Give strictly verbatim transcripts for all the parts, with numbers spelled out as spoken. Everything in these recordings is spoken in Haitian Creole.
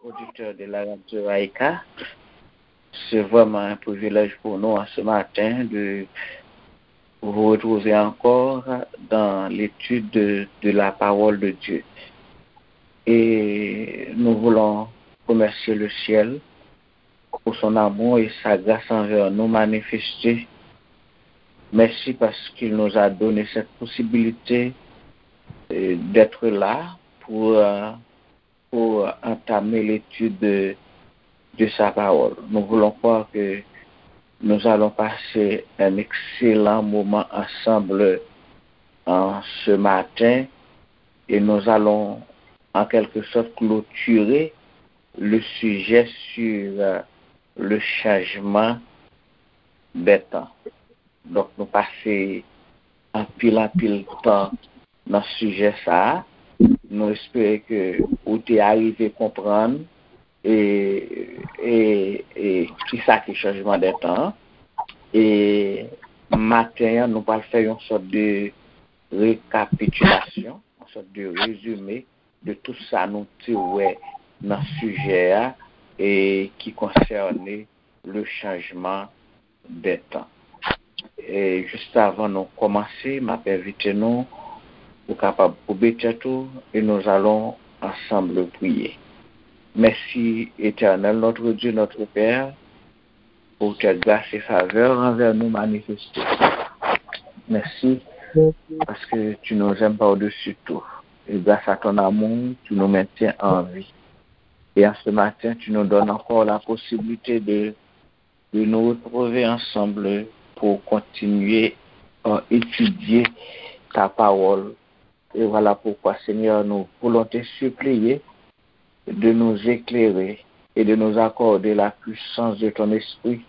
Auditeurs de la radio Aïka, c'est vraiment un privilège pour nous en ce matin de vous retrouver encore dans l'étude de, de la parole de Dieu. Et nous voulons remercier le ciel pour son amour et sa grâce envers nous manifestée. Merci parce qu'il nous a donné cette possibilité euh, d'être là pour, euh, pour entamer l'étude de, de sa parole. Nous voulons croire que nous allons passer un excellent moment ensemble en ce matin et nous allons en quelque sorte clôturer le sujet sur euh, le changement des temps. Donk, nou pase anpil, anpil tan nan sijè sa a. Nou espere ke ou te arive konprann e, e, e kisa ki chanjman de tan an. E maten an, nou pral fè yon sòt de rekapitilasyon, yon sòt de rezime de tout sa nou te wè nan sijè a e ki konsène le changement des temps. E jis avan nou kòmanse, m ap envite nou pou kapab koube tèt ou e nous allons ensemble prier. Merci, Éternel, notre Dieu, notre Père, pour tes grâces et faveurs envers nous manifestées. Merci parce que tu nous aimes par-dessus tout. Et grâce à ton amour, tu nous maintiens en vie. Et en ce matin, tu nous donnes encore la possibilité de, de nous retrouver ensemble pour continuer à étudier ta parole. Et voilà pourquoi, Seigneur, nous voulons te supplier de nous éclairer et de nous accorder la puissance de ton esprit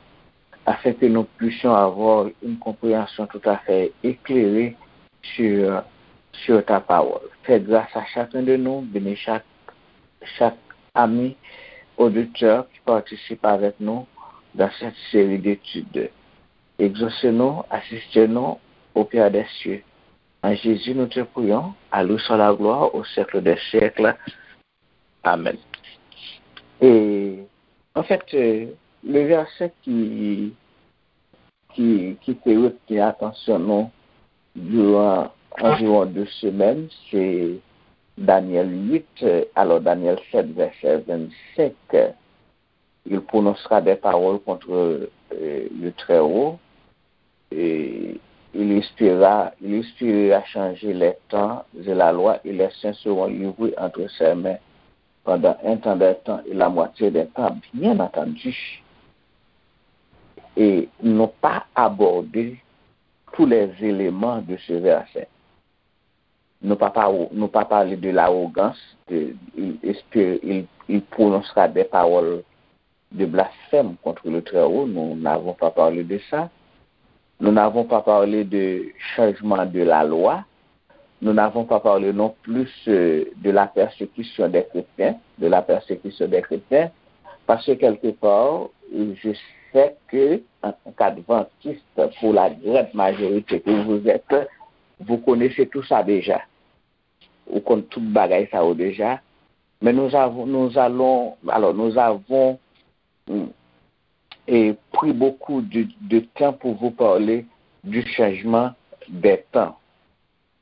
afin que nous puissions avoir une compréhension tout à fait éclairée sur, sur ta parole. Fais grâce à chacun de nous, bénis chaque, chaque ami auditeur qui participe avec nous dans cette série d'études. Exaucez-nous, assistez-nous au Père des cieux. En Jésus, nous te prions. À lui soit la gloire au siècle des siècles. Amen. E, an fèt, euh, le verset ki, ki, ki te retni atansyon nou durant environ deux semaines, c'est Daniel huit, euh, alors Daniel sept, verset vingt-cinq, euh, il prononcera des paroles contre euh, le Très-Haut, et il inspirera, il inspirera changer les temps et la loi, et les saints seront livrés entre ses mains pendant un temps des temps et la moitié des temps, bien entendu. Et non pas aborder tous les éléments de ce verset. Nou pa, pa, nou pa pale de l'arrogance, de, il, espère, il, il prononcera des paroles de blasphème contre le Très-Haut. Nous n'avons pas parlé de ça. Nous n'avons pas parlé de changement de la loi. Nous n'avons pas parlé non plus euh, de la persécution des chrétiens, de la persécution des chrétiens, parce que quelque part, je sais que en tant qu'adventiste, pour la grande majorité que vous êtes, vous connaissez tout ça déjà. Ou konn tout bagay sa yo déjà. Mais nous avons, nous allons, alors nous avons mm, et pris beaucoup de, de temps pour vous parler du changement des temps.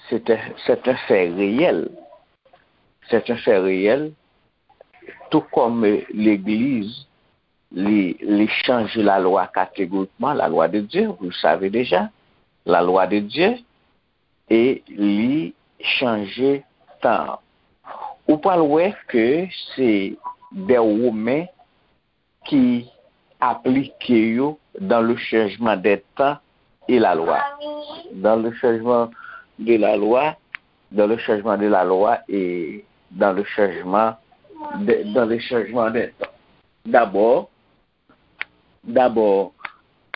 C'est un, c'est un fait réel. C'est un fait réel. Tout comme euh, l'Église, li, li chanje lalwa kategorikman, la loi de Dieu, vous le savez déjà, la loi de Dieu, e li chanje tan an. Ou pral wè ke se de Women ki aplike yo dans le changement des temps et la loi. Dans le changement de la loi, dans le changement de la loi et dans le changement de, dans le changement des temps. D'abord, d'abord,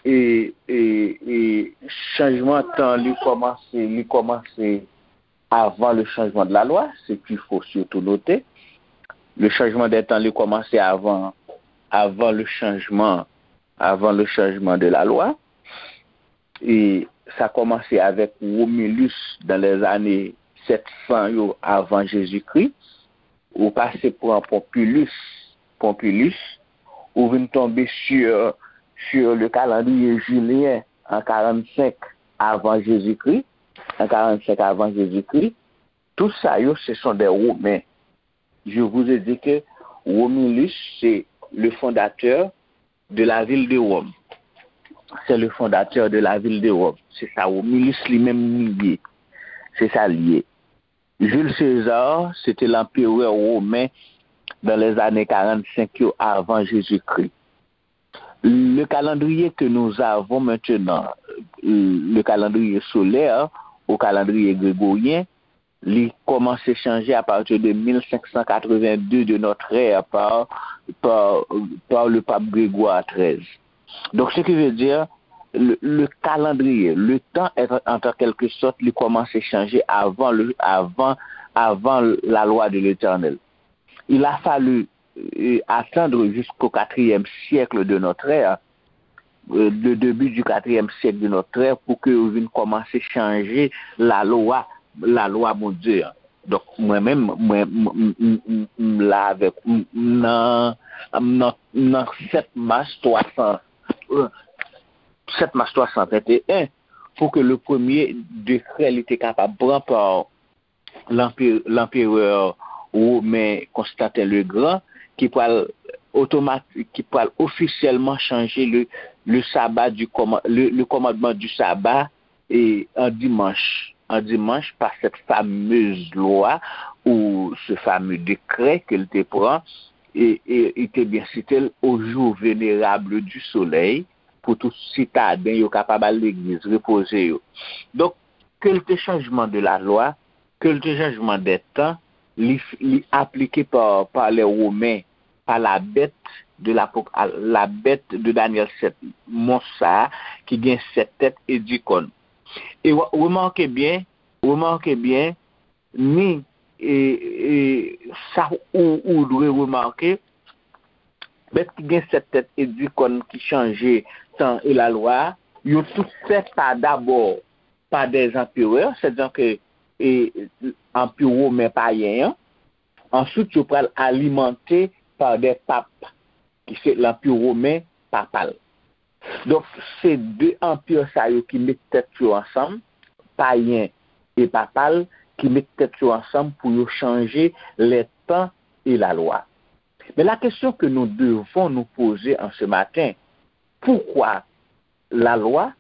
e, e, e chanjman tan li kòmanse, li kòmanse avant le changement de la loi, c'est qu'il faut surtout noter. Le changement des temps, il commençait avant, avant le changement, avant le changement de la loi. E sa kòmanse avèk Romulus dans les années sept cents yo avant Jésus-Christ. Ou pase pran Pompilus Pompilus, ou vin tonbe sur, sur le calendrier julien en quarante-cinq avant Jésus-Christ, en quarante-cinq avant Jésus-Christ, tout sa yo, ce sont des Romains. Je vous ai dit que Romulus, c'est le fondateur de la ville de Rome. C'est le fondateur de la ville de Rome. Se sa Romulus li menm li ye. Se sa li ye. Jules César, c'était l'empereur romain dans les années quarante-cinq avant Jésus-Christ. Le calendrier que nous avons maintenant, le calendrier solaire ou calendrier grégorien, li kòmanse chanje à partir de mille cinq cent quatre-vingt-deux de notre ère par, par, par le pape Grégoire treize. Donc, ce qui veut dire, le, le calendrier, le temps est en, en quelque sorte, li kòmanse chanje avant le, avant, avant la loi de l'Éternel. Il a fallu euh, attendre jusqu'au quatrième siècle de notre ère, euh, le début du quatrième siècle de notre ère, pou ke yo vin kòmanse chanje lalwa, lalwa Bondye an. Donk, mwen menm, mwen, m, m, m, m, m la avèk, m, m nan, m nan, m nan sèt mas twa san, euh, sèt mas twa san venteyen, pou ke le premye dekrè li te kapab pran pa lanpe-, lanperè women Konstanten le Gran, ki pral otomatik, ki pral ofisyèlman chanje le, le sabbat du kòman-, le, le commandement du sabbat e an dimanch, an dimanch pa cette fameuse loi ou ce fameux décret ke l te pran e, e, e te byen site l au jour vénérable du soleil pou tout sitaden yo kapab al legliz, repoze yo. Donk, ke l te changement de la loi, ke l te changement des temps, li, li aplike pa, pa les Romains, pa la bête de l'Apoc-, la bête de Daniel sept, mons sa a ki gen sèt tèt e dis kòn. E w-, remake byen, remake byen, ni, e, e, sa ou, ou dwe remake, bèt ki gen sèt tèt e dis kòn ki chanje tan e lalwa a, yo tout fèt pa dabò pa des empereurs, sètadi ke, e, anpi women payen an, answit yo pral alimante pa des papes, ki se lanpi women papal. Donk, se de anpi sa yo ki met tèt yo ansanm, payen e papal, ki met tèt yo ansanm pou yo chanje les temps et la loi. Mais la question que nous devons nous poser en ce matin, pourquoi la loi,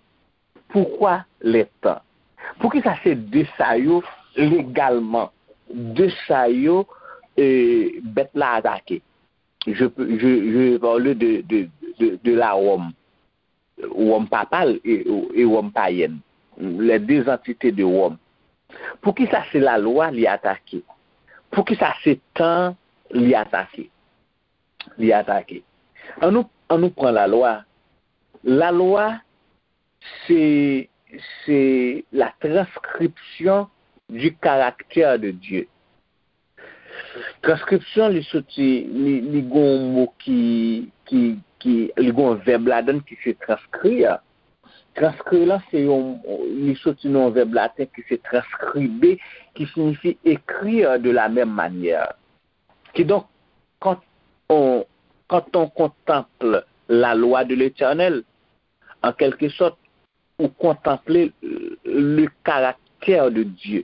pourquoi les temps? Poukisa se de sa yo legalman, de sa yo, e, bèt la atake? Je, peux- je, je vais parler de, de, de, de la Rome, Rome papale et, et Rome païenne, les deux entités de Rome. Poukisa se lalwa li atake? Poukisa se tan li atake? Li atake. An nou, an nou pran lalwa. Lalwa, se, se la transcription du caractère de Dieu. Transkripsyon, li soti, li, li gon yon mo ki, ki, ki, li gon vèb ladan ki se transkrir. Transkrir lan, se yon, li soti nan yon vèb laten ki se transcribe, ki siyifi écrire de la même manière. Kidonk, quand on, quand on contemple la loi de l'Éternel, en quelque sorte, ou kontanple le karaktè de Dye.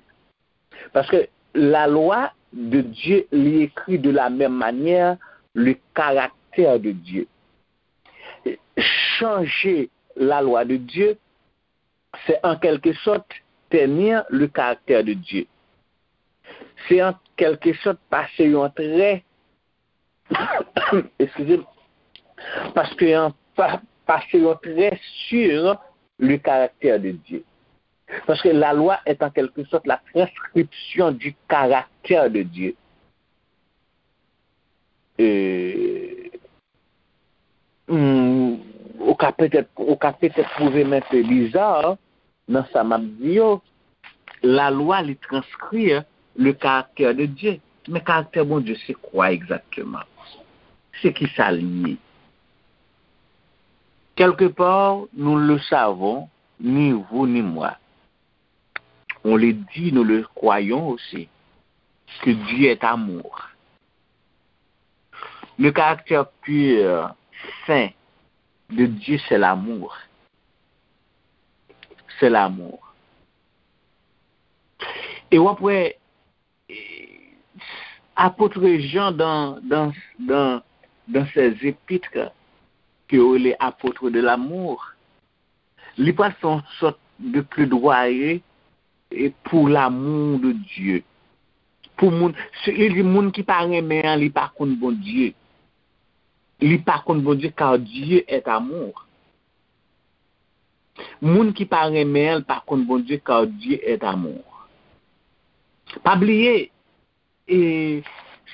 Paske la loi de Dieu, li écrit de la même manière le caractère de Dieu. Chanje la loi de Dieu, c'est en quelque sorte ternir le caractère de Dieu. Se an kèlkesòt pase yon trè, excusez-moi, paske yon, pa, pase yon trè sur le caractère de Dieu. Parce que la loi est en quelque sorte la transcription du caractère de Dieu. Euh, hmm, ou ka petèt, ou ka petèt twouve m enpe biza nan sa m ap di yo. Lalwa, li transkri le karaktè de Dye. Men karaktè Bondye, se kwa egzakteman? Se ki sa li ye? Quelque part, nous le savons, ni vous ni moi. On le dit, nous le croyons aussi, que Dieu est amour. Le caractère pur, saint de Dieu, c'est l'amour. C'est l'amour. E w ap wè, apot Jan, dans, dans, dans, dans ses épîtres, ke yo rele apot de l'amour, li pral fè yon sòt de pledwaye e pou l'amour de Dieu. Pou moun, si, li di moun ki pa renmen an, li pa konn Bondye. Li pa konn Bondye, car Dieu est amour. Moun ki pa renmen an, li pa konn Bondye, car Dieu est amour. Pa bliye, e,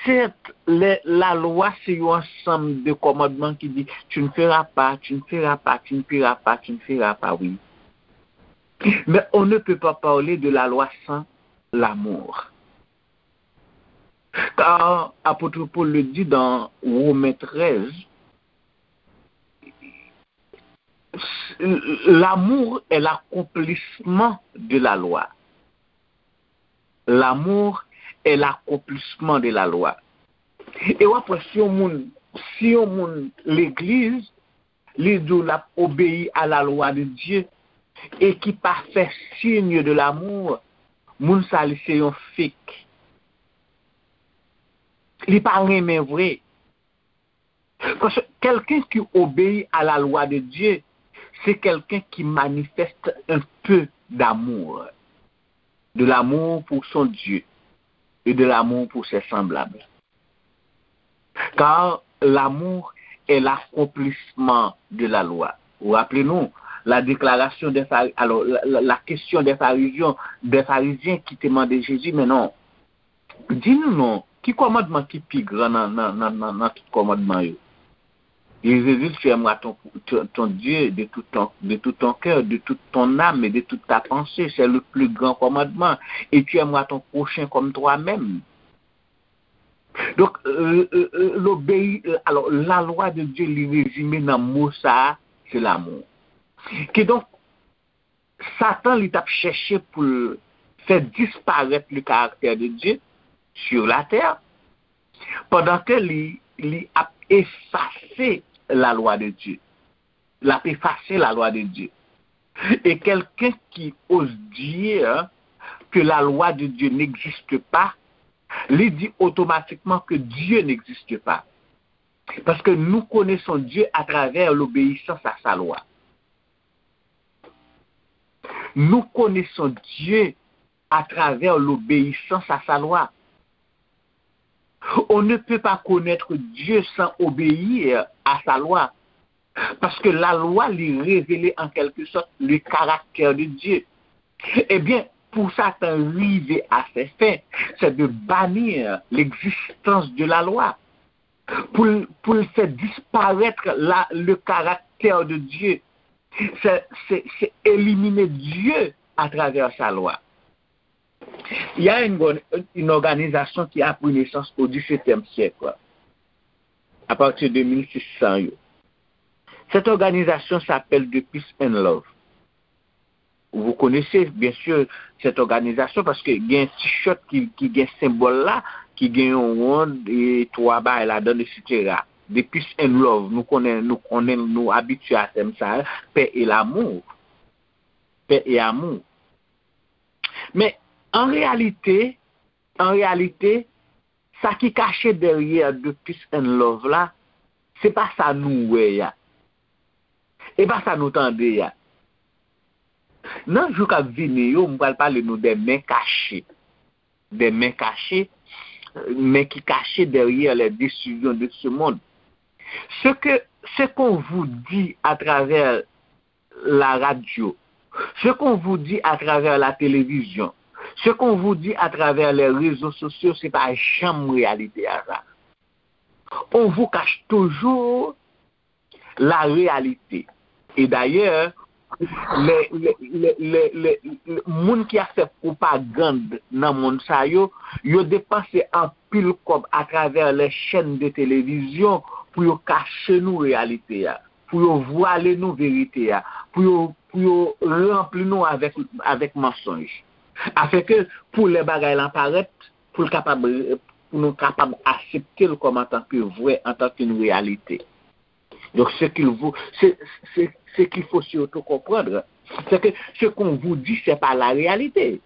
sèt, lè, lalwa se yon ansanm de kòmandman ki di, tu ne feras pas, tu ne feras pas, tu ne feras pas, tu ne feras pas, oui. Mais on ne peut pas parler de la loi sans l'amour. Car apôtre Paul le dit dans Romains treize, l'amour est l'accomplissement de la loi. L'amour est l'accomplissement de la loi. E w ap wè, si yon moun, si yon moun legliz, li di w l ap obeyi a la lwa de Dye, e ki pa fè signe de l'amour, moun sa li se yon fake. Li pa renmen vre. Parce que quelqu'un qui obéit à la loi de Dieu, c'est quelqu'un qui manifeste un peu d'amour. De l'amour pour son Dieu et de l'amour pour ses semblables. Car l'amour est l'accomplissement de la loi. Ou raple nou, la déclaration des Phari-, alors, la, la, la question des pharisiens, des pharisiens ki te mande Jezi, men non, di nou non, ki kòmandman ki pi gran nan, nan, nan, nan, nan tout kòmandman yo? Jezi di, tu aimeras ton, ton, ton Dieu de tout ton, de tout ton cœur, de toute ton âme et de toute ta pensée. C'est le plus grand commandement. Et tu aimeras ton prochain comme toi-même. Donk, euh, euh, euh, l'obéi-, euh, alò, la lwa de Dye, li rezime nan mo sa a, se l'amour. Kidonk, Satan, li t ap chèche pou l fè disparèt le caractère de Dieu sur la terre, pandan ke li, li ap efase la lwa de Dye. L ap efase la lwa de Dye. Et quelqu'un qui ose dire que la loi de Dieu n'existe pas, li di otomatikman ke Dye n'existe pas. Paske nous connaissons Dieu à travers l'obéissance à sa loi. Nous connaissons Dieu à travers l'obéissance à sa loi. On ne peut pas connaître Dieu sans obéir à sa loi. Paske la lwa, li revele an kèlke sòt le caractère de Dieu. Ebyen, pou Satan rive à ses fins, c'est de bannir l'existence de la loi. Pou l, pou l fè disparèt la, le caractère de Dieu. C'est, c'est, c'est éliminer Dieu à travers sa loi. Il y a une, une organisation qui a pris naissance au dix-septième siècle, à partir de mille six cents. Cette organisation s'appelle The Peace and Love. Vous connaissez, bien sûr, cette organisation paske gen t-shirt ki, ki gen senbòl la, ki gen yon wonn e twa bagay ladan, etsetera. The Peace and Love, nou konnen, nou konnen, nou abitye a tèm sa a, paix et l'amour. Paix et amour. Men, an reyalite, an reyalite, sa ki kache dèyè The Peace and Love la, se pa sa nou wè a. E pa sa nou tande a. Nan jou k ap vini yo, m pral pale nou de men kache. De men kache, men ki kache derrière les décisions de ce monde. Ce que, ce qu'on vous dit à travers la radio, ce qu'on vous dit à travers la télévision, ce qu'on vous dit à travers les réseaux sociaux, se pa janm reyalite a sa. On vous cache toujours la réalité. E dayè, lè, lè, lè, lè, lè, lè, moun ki ap fè pwopagand nan mond sa yo, yo depanse anpil kòb atravè les chaînes de télévision pou yo kache nou reyalite a, pou yo vwale nou verite a, pou yo, pou yo ranpli nou avèk, avèk mansonj. Afenke pou lè bagay lan parèt, pou l kapab, pour nous capables d'accepter le comme en tant que vrai, en tant qu'une réalité. Donc, ce qu'il vous, ce, ce, ce qu'il faut surtout comprendre, c'est que ce qu'on vous dit, c'est pas la réalité.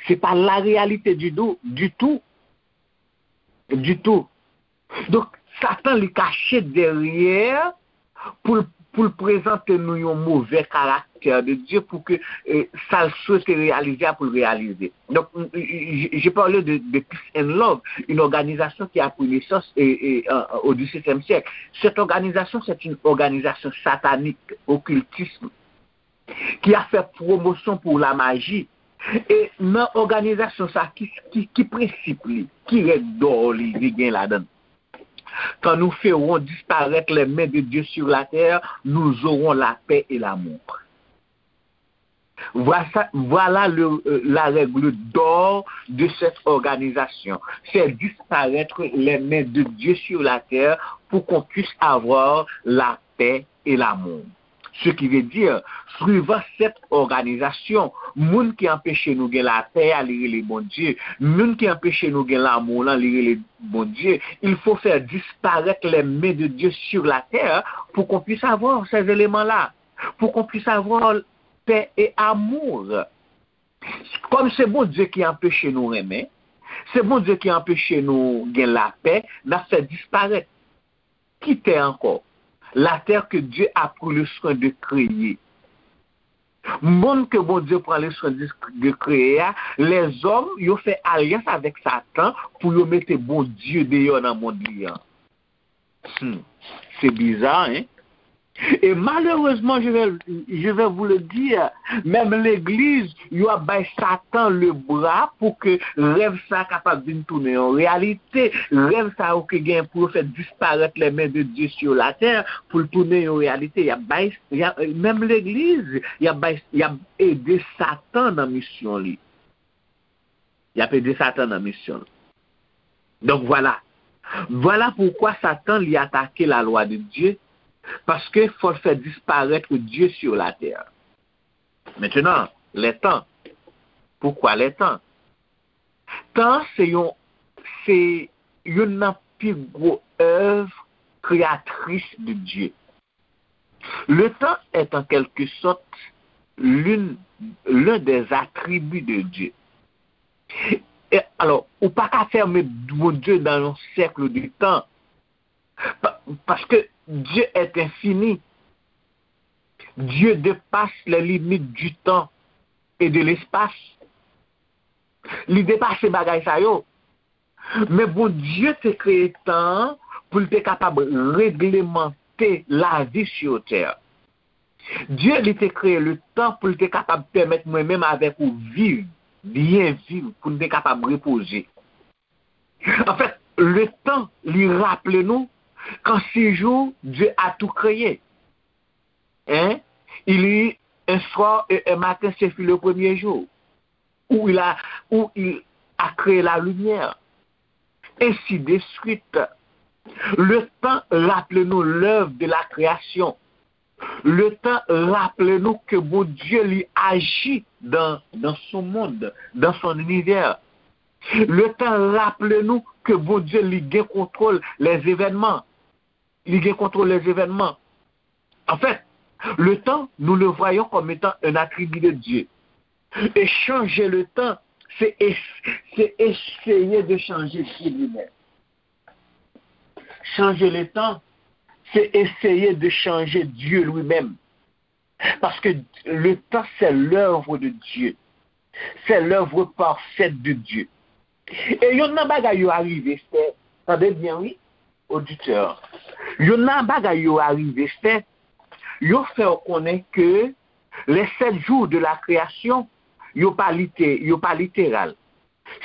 C'est pas la réalité du tout, du tout, du tout. Donk, Satan li kache dèyè pou l, pou l prezante nou yon move karaktè de Dye pou ke eh, sa l swete reyalize a pou l reyalize. Donk, j'ai parlé de, de Peace and Love, une organisation qui a pris naissance eh, eh, au dix-septième siècle. Cette organisation, c'est une organisation satanique, occultisme, ki ap fè pwomosyon pou lamaji. E nan òganizasyon sa, ki, ki, ki prensip li, ki règ dò li, li gen ladan l? Quand nous ferons disparaître les mains de Dieu sur la terre, nous aurons la paix et l'amour. Voilà, voilà le, euh, la règle d'or de cette organisation. Faire disparaître les mains de Dieu sur la terre pour qu'on puisse avoir la paix et l'amour. Ce qui veut dire, suivant cette organisation, moun ki anpeche nou gen lapè a, li rele Bondye. Moun ki anpeche nou gen lanmou lan, li rele Bondye. Il faut faire disparaître les mains de Dieu sur la terre pour qu'on puisse avoir ces éléments-là, pour qu'on puisse avoir paix et amour. Kòm se Bondye ki anpeche nou renmen, se Bondye ki anpeche nou gen lapè, n ap fè disparèt. Ki tè ankò? La terre que Dieu a pris le soin de créer. Monn ke Bondye pran le soin de, de kreye a, lèzòm yo fè alyans avèk Satan pou yo mete Bondye deyò nan monn li an. Hmm, c'est bizarre, hein? Et malheureusement, je vais, je vais vous le dire, menm legliz, yo ap bay Satan le bra pou ke rèv sa kapab vin tounen yon reyalite. Rèv sa yo ki gen pou yo fè disparèt les mains de Dieu sur la terre, pou l tounen yon reyalite. Y ap bay, y ap, menm legliz, y ap bay, y ap ede Satan nan misyon li. Y ap ede Satan nan misyon l. Donk, vwala. Vwala poukwa Satan li atake la lwa de Dye, paske fò l fè disparèt Dye sur la terre. Maintenant, les temps. Pourquoi les temps? Tan se yon, se youn nan pi gwo èv kreyatris de Dye. Le temps est en quelque sorte l'une, l'un des attributs de Dieu. E, alò, ou pa ka fèmen Bondye nan yon sèk de tan. Pa, paske Dieu est infini. Dieu dépasse les limites du temps et de l'espace. Li depase bagay sa yo. Men Bondye te kreye tan an pou l te kapab reglemante lavi sur terre. Dye li te kreye le tan pou l te kapab pèmèt mwen menm avèk ou viv, byen viv, pou n te kapab repoze. Anfèt, le tan li raple nou qu'en six jours, Dieu a tout créé. Hein? Il y eut un soir et un matin, ce fut le premier jour. Où il a, où il a créé la lumière. Ainsi de suite. Le tan raple nou lèv de la kreyasyon. Le tan raple nou ke Bondye li aji dans, dans son monde, dans son univers. Le tan raple nou ke Bondye li gen kontwòl les événements. Li gen kontwòl les événements. En fait, le temps, nous le voyons comme étant un attribut de Dieu. Et changer le temps, c'est es- c'est essayer de changer Dieu lui-même. Changer le temps, c'est essayer de changer Dieu lui-même. Parce que le temps, c'est l'œuvre de Dieu. C'est l'œuvre parfaite de Dieu. E yonn nan bagay yo arive fè, tande byen wi, oditè, yonn nan bagay yo arive fè, yo fè w konnen ke les sept jours de la création, yo pa lite, yo pa literal.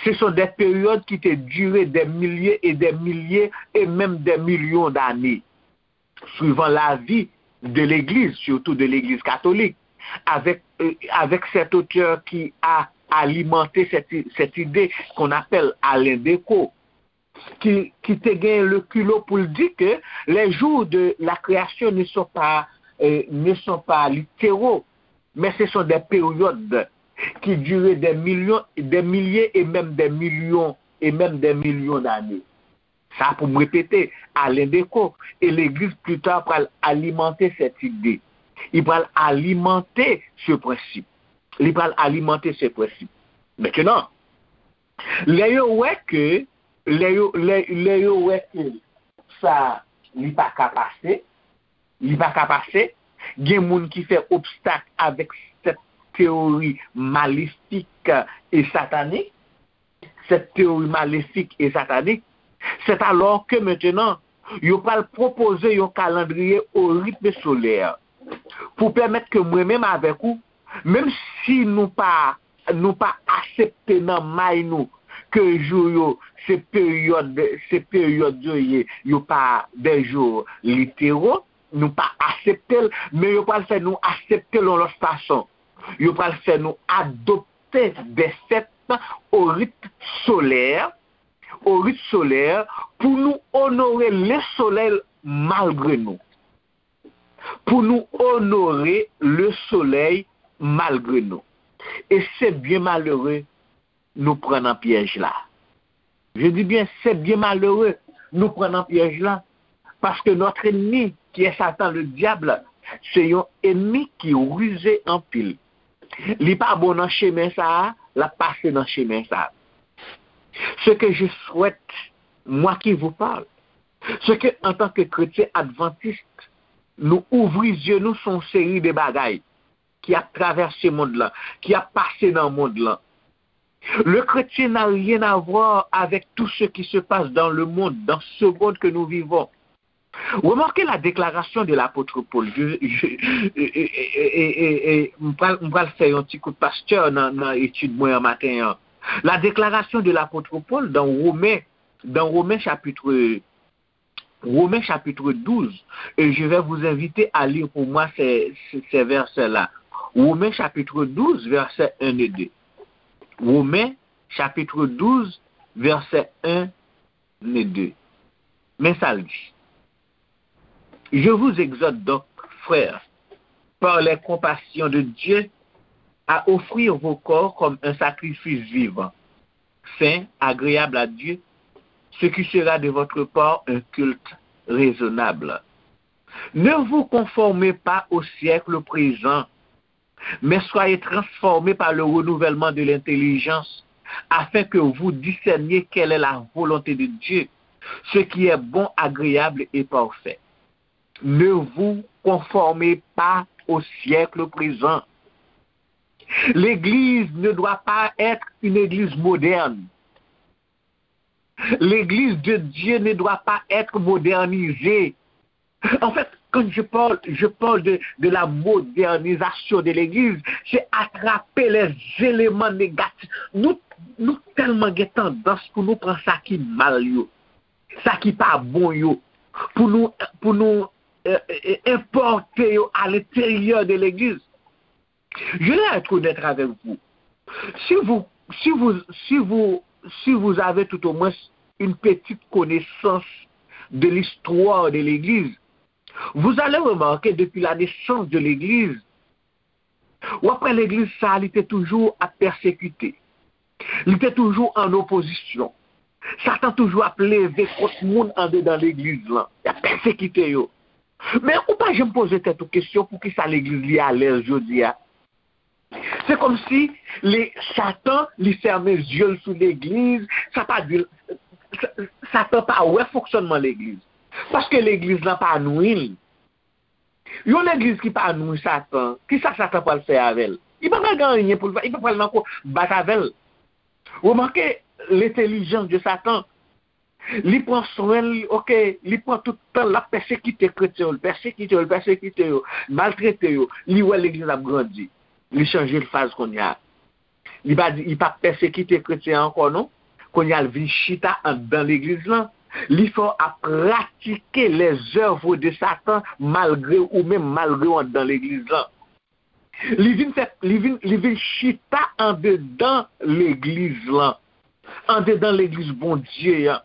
Ce sont des périodes qui te durent des milliers et des milliers et même des millions d'années, suivant l'avis de l'Église, surtout de l'Église catholique, avec, euh, avec cet auteur qui a alimenté cette, cette idée qu'on appelle Alain Decaux, qui, qui te gagne le culot pour dire que les jours de la création ne sont pas, euh, ne sont pas littéraux, mais ce sont des périodes qui durent des millions, des milliers et même des millions et même des millions d'années. Sa pou m repete, Alain Decaux, et l'Église plus tard pral alimante cette idée. Li pral alimante ce principe. Li pral alimante ce principe. Maintenant, lè yo wè ke, lè yo, lè, lè yo wè ke sa, li pa ka pase, li pa ka pase, gen moun ki fè obstak avèk cette théorie maléfique et satanique, cette théorie maléfique et satanique, c'est alors que maintenant, yo pral pwopoze yon kalandriye au rythme solaire pou pèmèt ke mwen menm avèk ou, menm si nou pa, nou pa aksepte nan may nou ke jou yo, se peryòd, se peryòd yo ye, yo pa des jours littéraux, nou pa aksepte l, men yo pral fè nou aksepte l yon lòt fason. Yo pral fè nou adopte des fêtes au rythme solaire, au rythme solaire, pou nou onore le soleil malgre nou. Pou nou onore le soleil malgre nou. E se byen malere nou pran nan pyèj la. Je dis bien, c'est bien malheureux, nou pran nan pyèj la. Paske notre ennemi, qui est Satan le diable, se yon enmi ki rize anpil. Li pa bon nan chemen sa a, l ap pase nan chemen sa a. Ce que je souhaite, moi qui vous parle, c'est que, en tant que chrétien adventiste, nou ouvri zye nou sou yon seri de bagay ki ap travèse mond lan, ki ap pase nan mond lan. Le chrétien n'a rien à voir avec tout ce qui se passe dans le monde, dans ce monde que nous vivons. Remarquez la déclaration de l'apôtre Paul. Je, je, e, e, e, e, e, e, m pral, m pral fè yon ti kout pastè nan, nan etid mwen an maten an. La déclaration de l'apôtre Paul dans Romains, dans Romains chapitre, Romains chapitre douze, et je vais vous inviter à lire pour moi ces, ces, ces versets-là. Romains chapitre douze, verset un et deux. Romains chapitre douze, verset un et deux. Men sa l di. Je vous exhorte donc, frères, par les compassions de Dieu, à offrir vos corps comme un sacrifice vivant, saint, agréable à Dieu, ce qui sera de votre part un culte raisonnable. Ne vous conformez pas au siècle présent, mais soyez transformés par le renouvellement de l'intelligence, afin que vous discerniez quelle est la volonté de Dieu, ce qui est bon, agréable et parfait. Ne vous conformez pas au siècle présent. L'Église ne doit pas être une église moderne. L'Église de Dieu ne doit pas être modernisée. En fait, quand je parle, je parle de, de la modernisation de l'Église, c'est attraper les éléments négatifs. Nou, nou tèlman gen tandans pou nou pran sa ki mal yo, sa ki pa bon yo, pou nou, pou nou, euh, euh, importe yo à l'intérieur de l'Église. Je vais être honnête avec vous. Si vous, si vous, si vous, si vous avez tout au moins une petite connaissance de l'histoire de l'Église, vous allez remarquer depuis la naissance de l'Église, w ap wè legliz sa a, li te toujou ap pèsekite. Li te toujou an opozisyon. Satan toujou ap leve kont moun andedan legliz lan. Y ap pèsekite yo. Men ou pa janm poze tèt ou kesyon poukisa legliz li alèz jodi a. Se kòmsi li, Satan, li fèmen zye l sou legliz, sa pa di l, Sa- Satan pa wè fonksyònman legliz. Paske legliz lan pa nwi l. Yon legliz ki pa nwi Satan, kisa Satan pral fè avè l? Li pa pral gen anyen pou l fè, li pa pral nan ko bat avè l. Remake lentelijans de Satan. Li pran swen l, ok, li pran tout tan l ap pèsekite kretyen yo, l pèsekite yo, l pèsekite yo, maltrete yo. Li wè legliz ap grandi. Li chanje faz kounye a. Li pa di, li pa pèsekite kretyen ankò non. Kounye a l vin chita anndan legliz lan. Li fè w ap pratike les œuvres de Satan malgre ou menm, malgre w anndan legliz lan. Li vin fè, li vin, li vin chita andedan legliz lan. Andedan legliz Bondye an.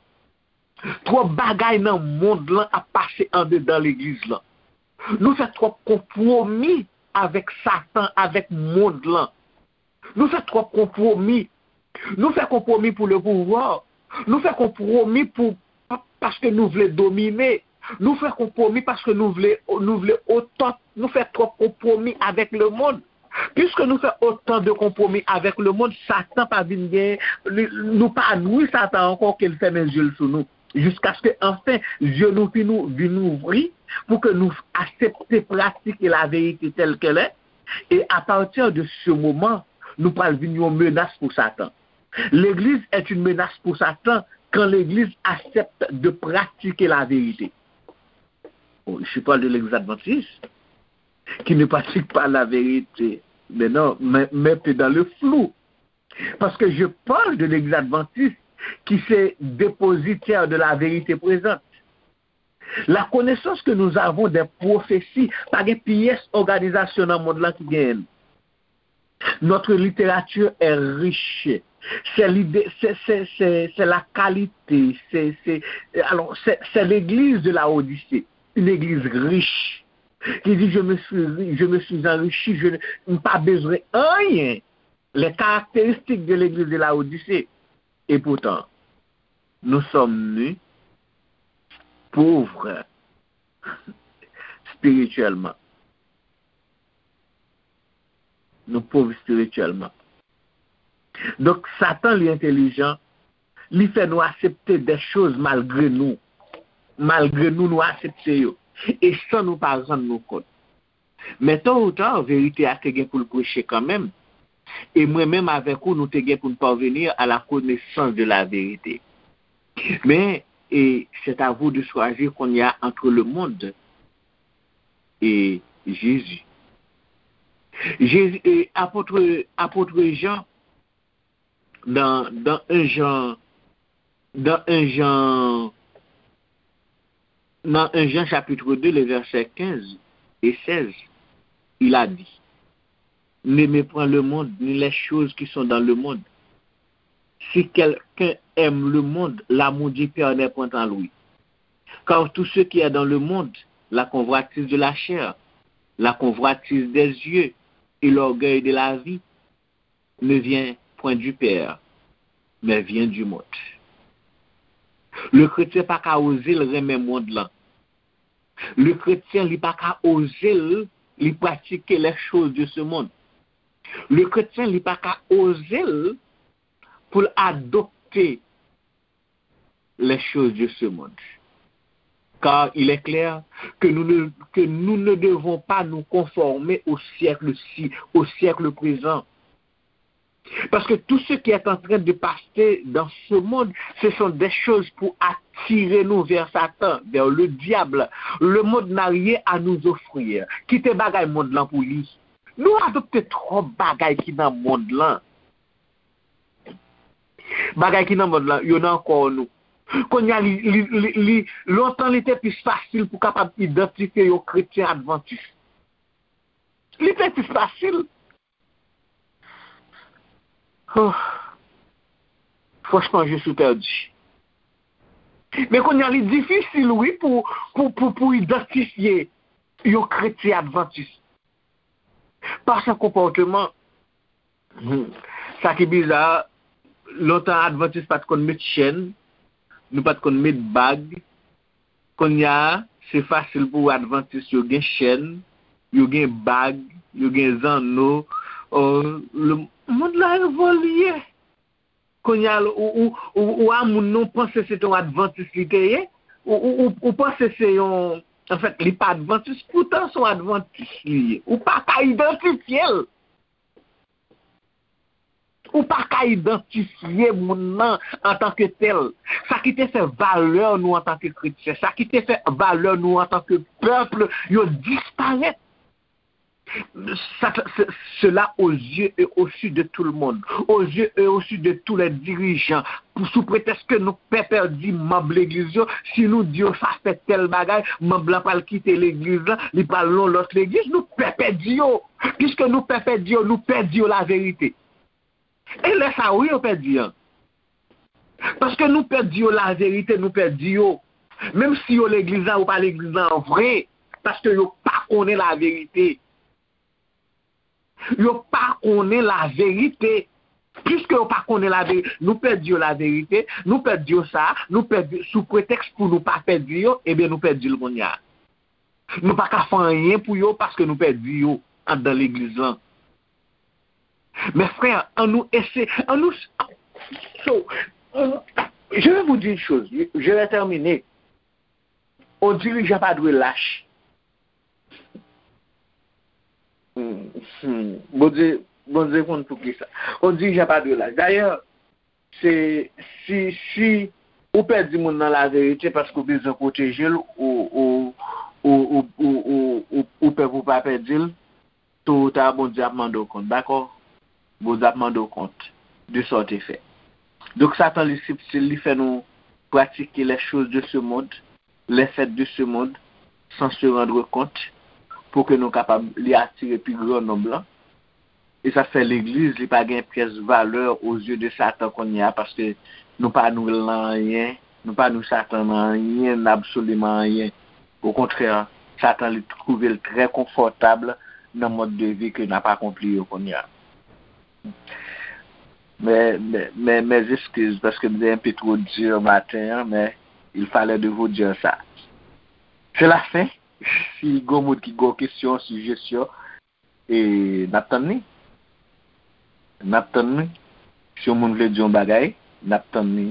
Twòp bagay nan mond lan ap pase andedan legliz lan. Nou fè twòp konpwomi avèk Satan, avèk mond lan. Nou fè twòp konpwomi. Nou fè konpwomi pou le pouvwa. Nou fè konpwomi pou, pa- paske nou vle domine. Nou fè konpwomi paske nou vle, nou vle otan. Nou fè twòp konpwomi avèk lemonn. Piske nou fè otan de konpwomi avèk lemonn, Satan pa vin gen, li- nou pa nwi Satan ankò ke l fèmen zye l sou nou. Jiskaske anfen, zye nou vin, vin ouvri pou ke nou aksepte pratike laverite tèl kèl è. E apati de se moman, nou pral vin yon menas pou Satan. L'église est une menace pour Satan quand l'Église accepte de pratiquer la vérité. Bon, je parle de l'Église adventiste qui ne pratique pas la vérité. Mais non, mais, mais t'es dans le flou. Parce que je parle de l'Église adventiste qui se dépositaire de la vérité présente. La connaissance que nous avons des prophéties, pa gen pyès òganizasyon nan mond lan ki genyen l. Notre littérature est riche. C'est l'idée, c'est, c'est, c'est, c'est la qualité, c'est, c'est, alors, c'est, c'est l'église de Laodicée, une église riche, qui dit, je me suis, ri- je me suis enrichi, je ne, m pa bezwen anyen. Les caractéristiques de l'église de Laodicée. Et pourtant, nous sommes nus, pauvres spirituellement. Nou pòv espirityèlman. Donk, Satan, li entelijan, li fè nou aksepte de choz malgre nou. Malgre nou, nou aksepte yo. E san nou pa rann nou kont. Men tôt ou tard, verite a te gen pou l preche kanmenm. E mwen menm avèk ou, nou te gen pou n parvenir à la connaissance de la vérité. Men, e c'est à vous de choisir kounye a entre le monde et Jésus. Jésus, e apot, apot Jan, nan, nan en Jan, nan en Jan, nan en Jan chapitre deux, les versets quinze et seize, il a dit, n'aimez point le monde, ni les choses qui sont dans le monde. Si quelqu'un aime le monde, l'amour du Père n'est point en lui. Car tout ce qui est dans le monde, la convoitise de la chair, la convoitise des yeux et l'orgueil de la vie, ne vient point du Père, mais vient du monde. Le kretyen pa ka oze l renmen mond lan. Le kretyen, li pa ka oze l, li pratike les choses de ce monde. Le kretyen, li pa ka oze l pou l adopte les choses de ce monde. Car il est clair que nous ne, que nous ne devons pas nous conformer au siècle-ci, au siècle présent. Parce que tout ce qui est en train de passer dans ce monde, ce sont des choses pour attirer nous vers Satan, vers le diable. Le monde n'a rien à nous offrir. Kite bagay mond lan pou li. Nou adopte twòp bagay ki nan mond lan. Bagay ki nan mond lan, yo nan kò nou. Kounye a, li, li, li, li, lontan li te plis fasil pou kapab idantifye yon kretyen advantis. Li te plis fasil. Oh. Franchman, je suis perdu. Men kounye a, li difisil, wi, pou, pou, pou, pou idantifye yon kretyen advantis. Pa sa konpòteman. Hmm. Sa ki biza, lontan advantis pa t konn met chèn, nou pa t konn met bag. Kounye a, se fasil pou advantis yo gen chèn, yo gen bag, yo gen zanno. Oh, le, mond la evolye. Kounye a, ou, ou, ou, ou a moun nan, ou panse se te yon advantis li te ye. Ou, ou, ou, ou panse se yon, anfèt, li pa advantis, poutan se yon advantis li ye. Ou pa ka idantifye l. Ou pa ka idantifye moun nan antanke tèl. Sa ki te fè valè nou antanke kretyen, sa ki te fè valè nou antanke pèp, yo disparèt. Sa, se, cela aux yeux et au su de tout le monde, aux yeux et au su de tous les dirigeants. Pou, sou pretèks ke nou pè pèdi manm legliz yo, si nou di yo sa fè tèl bagay, manm lan pral kite legliz lan, li pral nan lòt legliz, nou pè pèdi yo. Piske nou pè pèdi yo, nou pè di yo laverite. E lè sa a, wi, yo pèdi an. Paske nou pè di yo laverite, nou pè di yo. Menm si yo legliz la, yo pa legliz la an vre. Paske yo pa konnen laverite. Yo pa konnen laverite. Piske yo pa konnen laverite, nou pèdi yo laverite, nou pèdi yo sa, nou pèdi sou pretèks pou nou pa pèdi yo, ebyen nou pèdi l kounye a. Nou pa ka fè anyen pou yo paske nou pèdi yo anndan legliz lan. Mes frères, annou ese, annou, so, je vais vous dire une chose, je vais terminer. On dirijan pa dwe lach. Hmm, hmm. Bondye, Bondye konn poukisa. On dirijan pa dwe lach. Dayè, se, si, si ou pèdi moun nan laverite paske ou bezwen pwoteje l, ou, ou, ou, ou, ou, ou, ou, ou pè pou pa pèdi l, to ou ta, Bondye ap mande w kont, dakò? Bondye ap mande w kont de sa w te fè. Donk, Satan, li sibtil, li fè nou pratike les choses de ce monde, les faits de ce monde, sans se rendre compte, pou ke nou kapab, li atire pi gran nonb lan. E sa fè legliz, li pa gen pyès valè o zye de Satan kounye a, paske nou pa nwi l nan anyen, nou pa nwi Satan nan anyen, nan absoliman anyen. Okontrè, Satan, li twouve l trè konfòtab nan mòd de vi ke n ap akonpli yo kounye a. Mes, mes, mes, mes excuses, paske m te enpe two di maten an, men il fallait de vous dire ça. C'est la fin. Si gon moun ki gon kesyon, sijesyon, e n ap tann li. N ap tann li. Si yon moun vle di yon bagay, n ap tann li.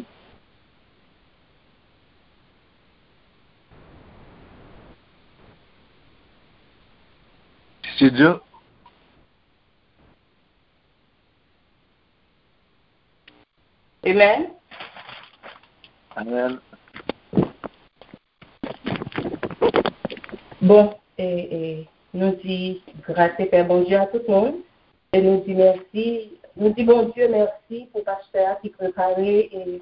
Studio. Amen. Amen. Bon, e, e, nou di gras e pè Bondye a tout moun. E nou di mèsi, nou di Bondye mèsi pou pastè a ki prepare e,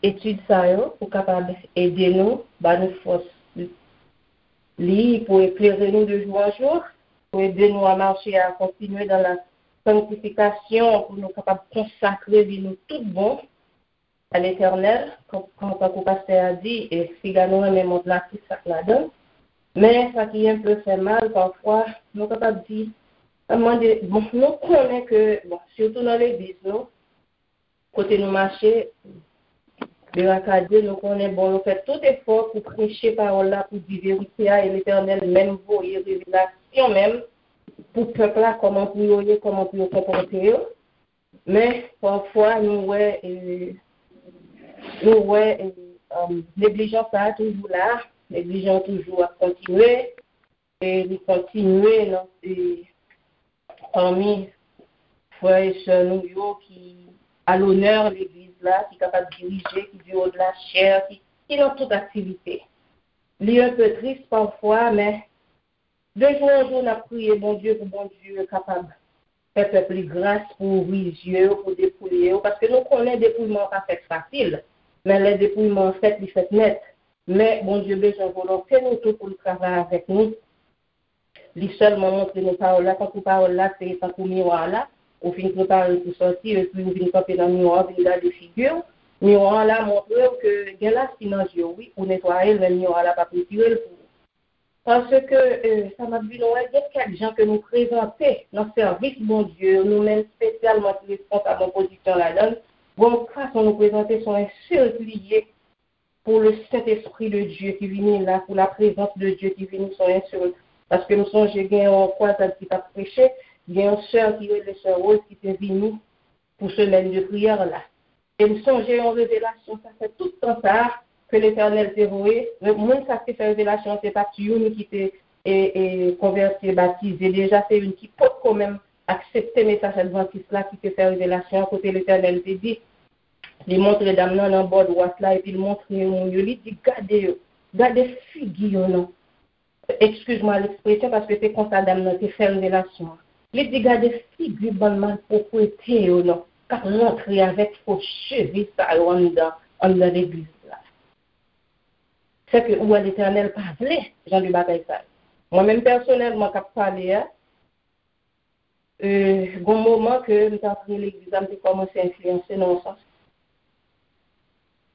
etid sa yo pou kapab ede nou, ba nou fòs li, pou eklere nou de jou an jou, pou ede nou a mache a kontinye dan la sanktifikasyon, pou nou kapab konsakre vi nou tout bon a Letènèl, kon, kon, tankou pastè a di, e figa nou renmen mond la, tout sa k ladan l. Men sa ki enpe fè mal, pafwa, nou kapab di, mande, bon, nou konnen ke, bon, sitou nan legliz nou, kote nou mache, berakade, nou konnen, bon, nou fè tout efò pou preche pawòl la, pou di verite a, e Letènèl menm voye revelasyon menm pou pèp la, kòman pou yo ye, kòman pou yo konpòte yo. Men, pafwa, nou wè, e, nou wè, e, um, neglijans sa a toujou la, neglijans toujou ap kontinye, e li kontinye nan, e, pami frè e sè nou yo ki a lonè legliz la, ki kapab dirije, ki du haut de la chair, ki, ki nan tout aktivite. Li enpe tris pafwa, men de jou an jou, n ap priye Bondye pou Bondye kapab fè pèp li gras pou ouvri zye yo, pou depouye yo, paske nou konnen depouyman an pa fèt fasil, men lè depouyman an fèt, li fèt nèt. Men Bondye bezwen volonte nou tou pou l travay avèk nou. Li sèlman montre nou pawòl la, tankou pawòl la se tankou miwa la, ou fin prepare pou sòti, epi ou vin kanpe nan miwa, ou vin gade figi w. Miwa la montre w ke gen lasi nan zye w, wi, ou netwaye l, men miwa la p ap retire l pou ou. Paske, e, sa m ap di nou, wè, gen kèk jan ke nou prezante nan sèvis Bondye yo, nou menm espesyalman ki responsab yon pozisyon ladan l, gon fason nou prezante se yon ensilt li ye pou le Saint-Esprit de Dieu ki vini la, pou la prezans de Dieu ki vini se yon ensilt. Paske m sonje gen yon kwazad ki t ap preche, gen yon sè ki rele sè Rose ki te vini pou semèn de priyè la. E m sonje yon revelasyon, sa fè tout tan sa a ke Letènèl te voye. Moun sa k te fè revelasyon an, se pa t youn ki te e, e, konvèti e batize deja, se youn ki potko menm aksepte mesaj advantis la ki te fè revelasyon an, kote Letènèl te di, li montre dam nan nan bò dwat la, epi l montre yo moun yo, li di, gade yo, gade figi yo non. Excuse-moi l'expression, paske se konsa dam nan te fè revelasyon an. Li di, gade figi bann malpwopwete yo non, k ap rantre avèk fo cheve sa yo anndan, anndan legliz la. Sèke ou wè Letènèl pa vle jan de bagay sa yo. Mwen menm pèsonèlman k ap pale a, e, gon moman ke m t antre legliz la, m te kòmanse enfliyanse nan yon sans.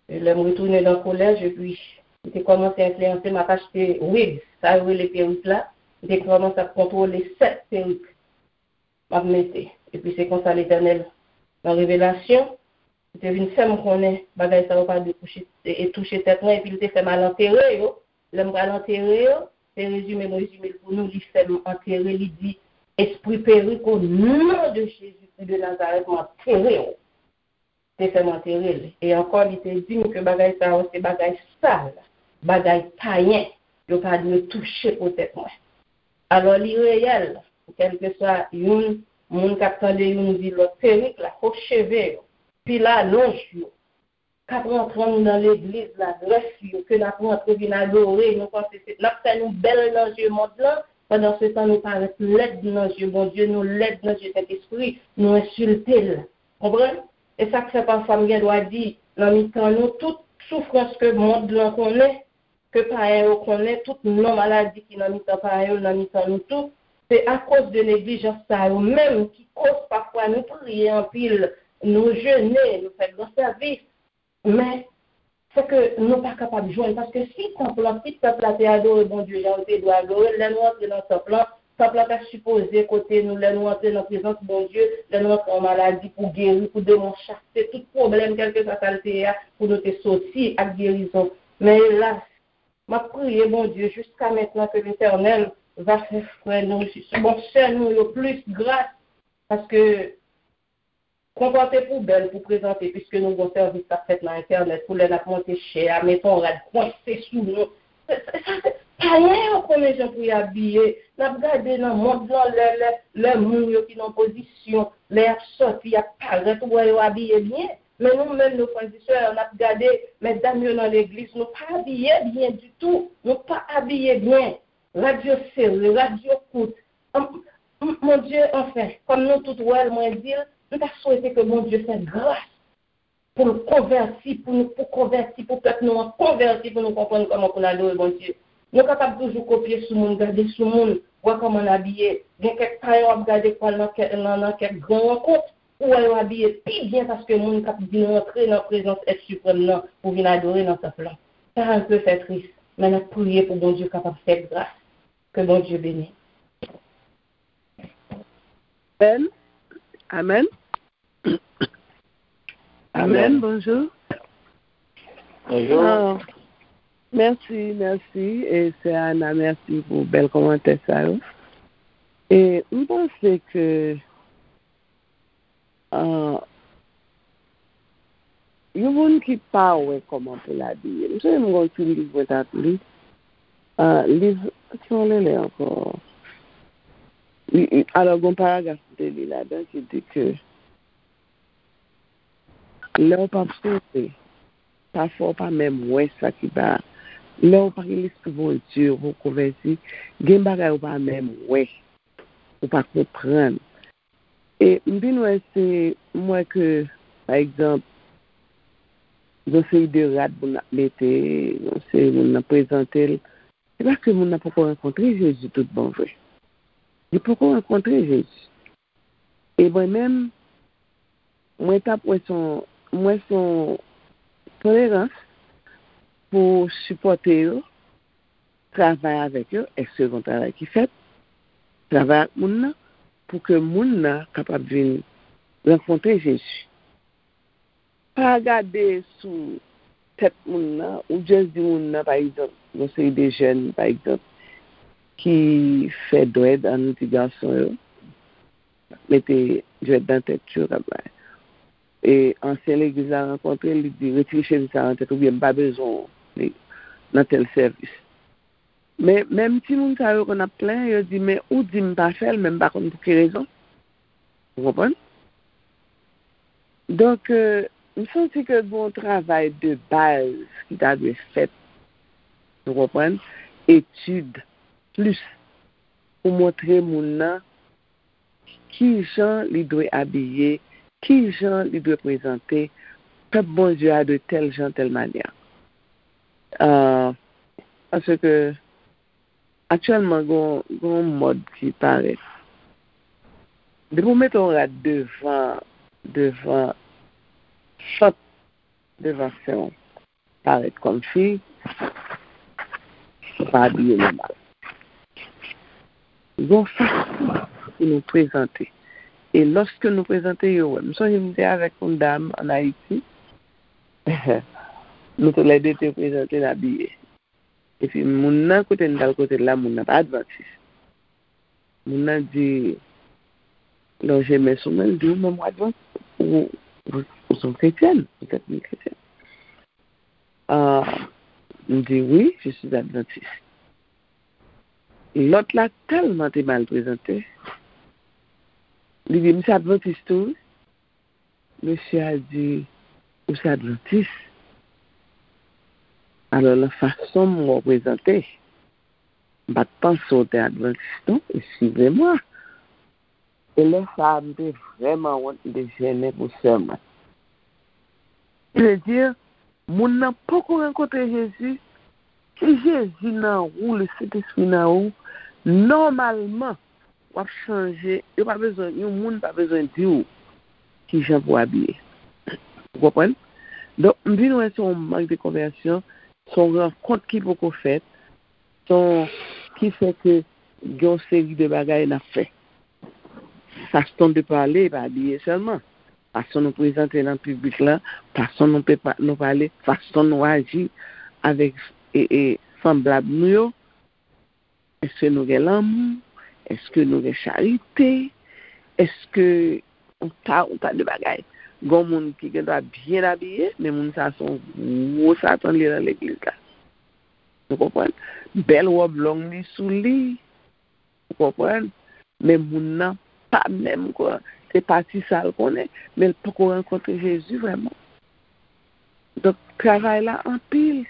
E lè m retounen nan kolèj, epi m te kòmanse enfliyanse, m ap achte wig, sa yo rele perik la, m te kòmanse ap kontwole sèt perik m ap mete. Epi se konsa Letènèl, nan revelasyon, li te vin fè m konnen bagay sa yo pa dwe kouche, e, e touche tèt mwen, epi li te fè m al antere yo. Lè m pral antere yo, se rezime m rezime l pou nou, li fè m antere, li di, Espri perik, o non de Jezikri de Nazarèt, m antere w. Te fè m antere l. E ankò, li te di m ke bagay sa yo se bagay sal, bagay payen, yo pa dwe touche po tèt mwen. Alò, li reyèl, kèlkeswa youn, moun k ap tande youn di lòt perik la, fo cheve yo, pil alonj yo, k ap rantre anndan legliz la, grèf yo, ke n ap rantre vin adore, nou panse se, n ap fè nou bèl nan zye mond lan, pandan se tan nou parèt lèd nan zye Bondye, nou lèd nan zye Sentespri, nou ensilte l. Konprann? E sa k fè pafwa m gen dwa di, nan mitan nou, tout soufrans ke mond lan konnen, ke payen yo konnen, tout non maladi ki nan mitan payen yo, nan mitan nou tou, se akoz de neglijans sa yo menm ki koz pafwa nou priye anpil, nou jene, nou fè gran sèvis, men se ke nou pa kapab jwenn, paske si tanp lan, si pèp la te adore Bondye jan yo te dwe adore l, lè nou antre nan tanp lan, tanp lan ta sipoze kote nou, lè nou antre nan prezans Bondye, lè nou antre an maladi pou geri, pou demon chase, tout pwoblèm, kèlkeswa sa l te ye a, pou nou te soti ak gerizon. Men elas, m ap priye Bondye jiska mentnan ke Letènèl va fè frè nou, bon, sè nou yo plis gras, paske konpòte poubèl pou prezante, piske nou gon sèvis k ap fèt nan entènèt, pou lè n ap monte chè a, mete yon rad kwense sou nou. Sa, sa, sa, se payen yo konnen jan pou y abiye. N ap gade nan mond lan, lè, lè, lè moun yo ki nan pozisyon, lè y ap sòti, y ap parèt, ou wè yo abiye byen. Men nou menm, nou frè e sè, n ap gade, medam yo nan legliz, nou pa abiye byen ditou. Nou pa abiye byen. Rad yo sere, rad yo kout. An, m, Bondye, anfen, kòm nou tout wè l, mwen di l, m ta swete ke Bondye fè gras pou l konvèti, pou nou, pou konvèti, pou pèp nou an konvèti, pou nou konprann kòman pou n adore Bondye. Nou kapab toujou kopye sou moun, gade sou moun, wè kòman n abiye. Gen kèk payen w ap gade k pral nan kè-, nan, nan kèk gran rankont, ou wè yo abiye pi byen paske moun k ap vin rantre nan prezans Èt Siprèm nan pou vin adore nan tanp lan. Sa un peu fè tris, men n ap priye pou Bondye kapab fè gras. Ke Bondye beni. Amèn. Amèn. Amèn. Bonjou. Bonjou. Ah, mèsi, mèsi. E sè Ana, mèsi pou bèl kòmantè sa yo. E m panse ke ah, yon moun ki pa wè kòman pou l abiye. M sonje m gon ti liv mwen t ap li. Ah, liv, ki yon lele ankò? Li, li, alò, gon paragraf m te li ladan ki di ke lè w p ap sonje, pafwa w pa menm wè sa ki ba. Lè w pa gen Lespri Bondye, ou poko konvèti, gen bagay ou pa menm wè, ou pa konprann. E m vin wè se, m wè ke, pa egzanp, yon seri de rad moun ap mete, yon seri moun nan prezante l, se paske moun nan poko rankontre Jezi tout bon vre. Li poko rankontre Jezi. E mwen menm, mwen t ap wè se yon, m wè se yon tolerans pou sipòte yo, travay avèk yo, èske gon travay ki fèt, travay ak moun nan, pou ke moun nan kapab vin rankontre Jezi. Pa gade sou tèt moun nan, ou just di moun nan, pa egzanp, yon seri de jèn, pa egzanp, ki fè dwèd, ann di gason yo, mete dwèd nan tèt yo, k ap bay. E ansyen legliz la rankontre l, li di, retire chemiz sa nan tèt ou, oubyen m pa bezwen w nan tèl sèvis. Men, menm timoun sa yo konn ap plenyen, yo di, men ou di m pa fè l, men m pa konn pou ki rezon. Ou konprann? Donk, euh, m santi ke gen yon travay de baz ki ta dwe fèt, ou konprann, etid plis pou montre moun nan ki jan li dwe abiye, ki jan li dwe prezante, pèp Bondye a dwe tèl jan, tèl manyè. Ah, paske aktyèlman, gen yon, gen yon mòd ki parèt. Depi w mete yon rad devan, devan sant, devan sen w, parèt kòmsi ou pa abiye nòmal. Gen yon fason pou nou prezante. E lòske nou prezante yo, wè, m sonje m te avèk yon dam ann Ayiti. Nou toulède te prezante n abiye. Epi moun nan, kote n t al kote l la, moun nan pa advantis. Moun nan di, lonje men sou mwen, l di, ou menm ou advantis, ou, ou, ou se yon kretyèn, vous êtes une chrétienne. Ah, m di, oui, je suis adventiste. Lòt la tèlman te mal prezante, li di, m se advantis tou, wi. Mesye a di, ou se advantis? Alò, nan fason m wè w prezante, m pa t panse w te advantis, non, excusez-moi. E lè sa a, m te vrèman wont, m te jennen pou sè mwen. Sa vle di, moun nan poko rankontre Jezi, si Jezi nan ou, Lesentespri nan ou, nòmalman, w ap chanje. Yo pa bezwen, yon moun pa bezwen di w kijan pou w abiye. Ou konprann? Donk, m vin wè se yon mank de konvèsyon, se yon rankont ki poko fèt, se yon, ki fè ke gen yon seri de bagay n ap fè. Fason de pale, pa abiye sèlman. Fason nou prezante nan piblik la, fason nou pe pa-, nou pale, fason nou aji avèk, e, e, sanblab nou yo. Èske nou gen lanmou? Èske nou gen charite? Èske yon ta, yon ta de bagay? Gon moun ki gen dwa byen abiye, men moun sa se yon gwo satan li ye nan legliz la. Ou konprann? Bèl wòb long li sou li. Ou konprann? Men moun nan pa menm kwa. Se pati sa l konnen, men l poko rankontre Jezi vrèman. Donk, travay la anpil.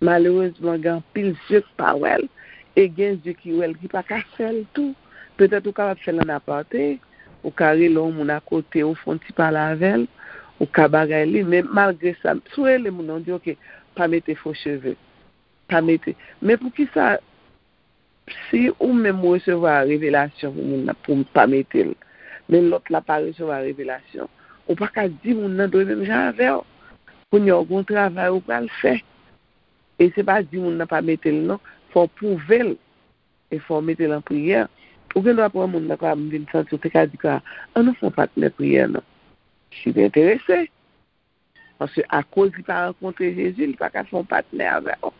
Malerezman, gen anpil zye k pa wè l, e gen zye ki wè l ki pa ka fè l tou. Petèt ou kapab fè l an apate, ou ka rele yon moun akote, ou fè yon ti pale avè l, ou ka bagay li, men malgre sa, si w rele moun nan, w di, oke, pa mete fo cheve, pa mete. Men poukisa, si ou menm ou resevwa revelasyon pou moun nan, pou pa mete l, men lòt la pa resevwa revelasyon, ou pa ka di moun nan dwe menm jan avè w. Kounye a, w gen yon travay ou pral fè. E se pa di moun nan pa mete l non, fò w pwouve l. E fò w mete l an priyè. Ou gen dwa pran moun nan, kwa, m vin santi w te ka di, kwa, ann nou fè yon patnè priyè non. Si w enterese. Paske akoz li pa rankontre Jezi, li pa ka fè yon patnè avè w.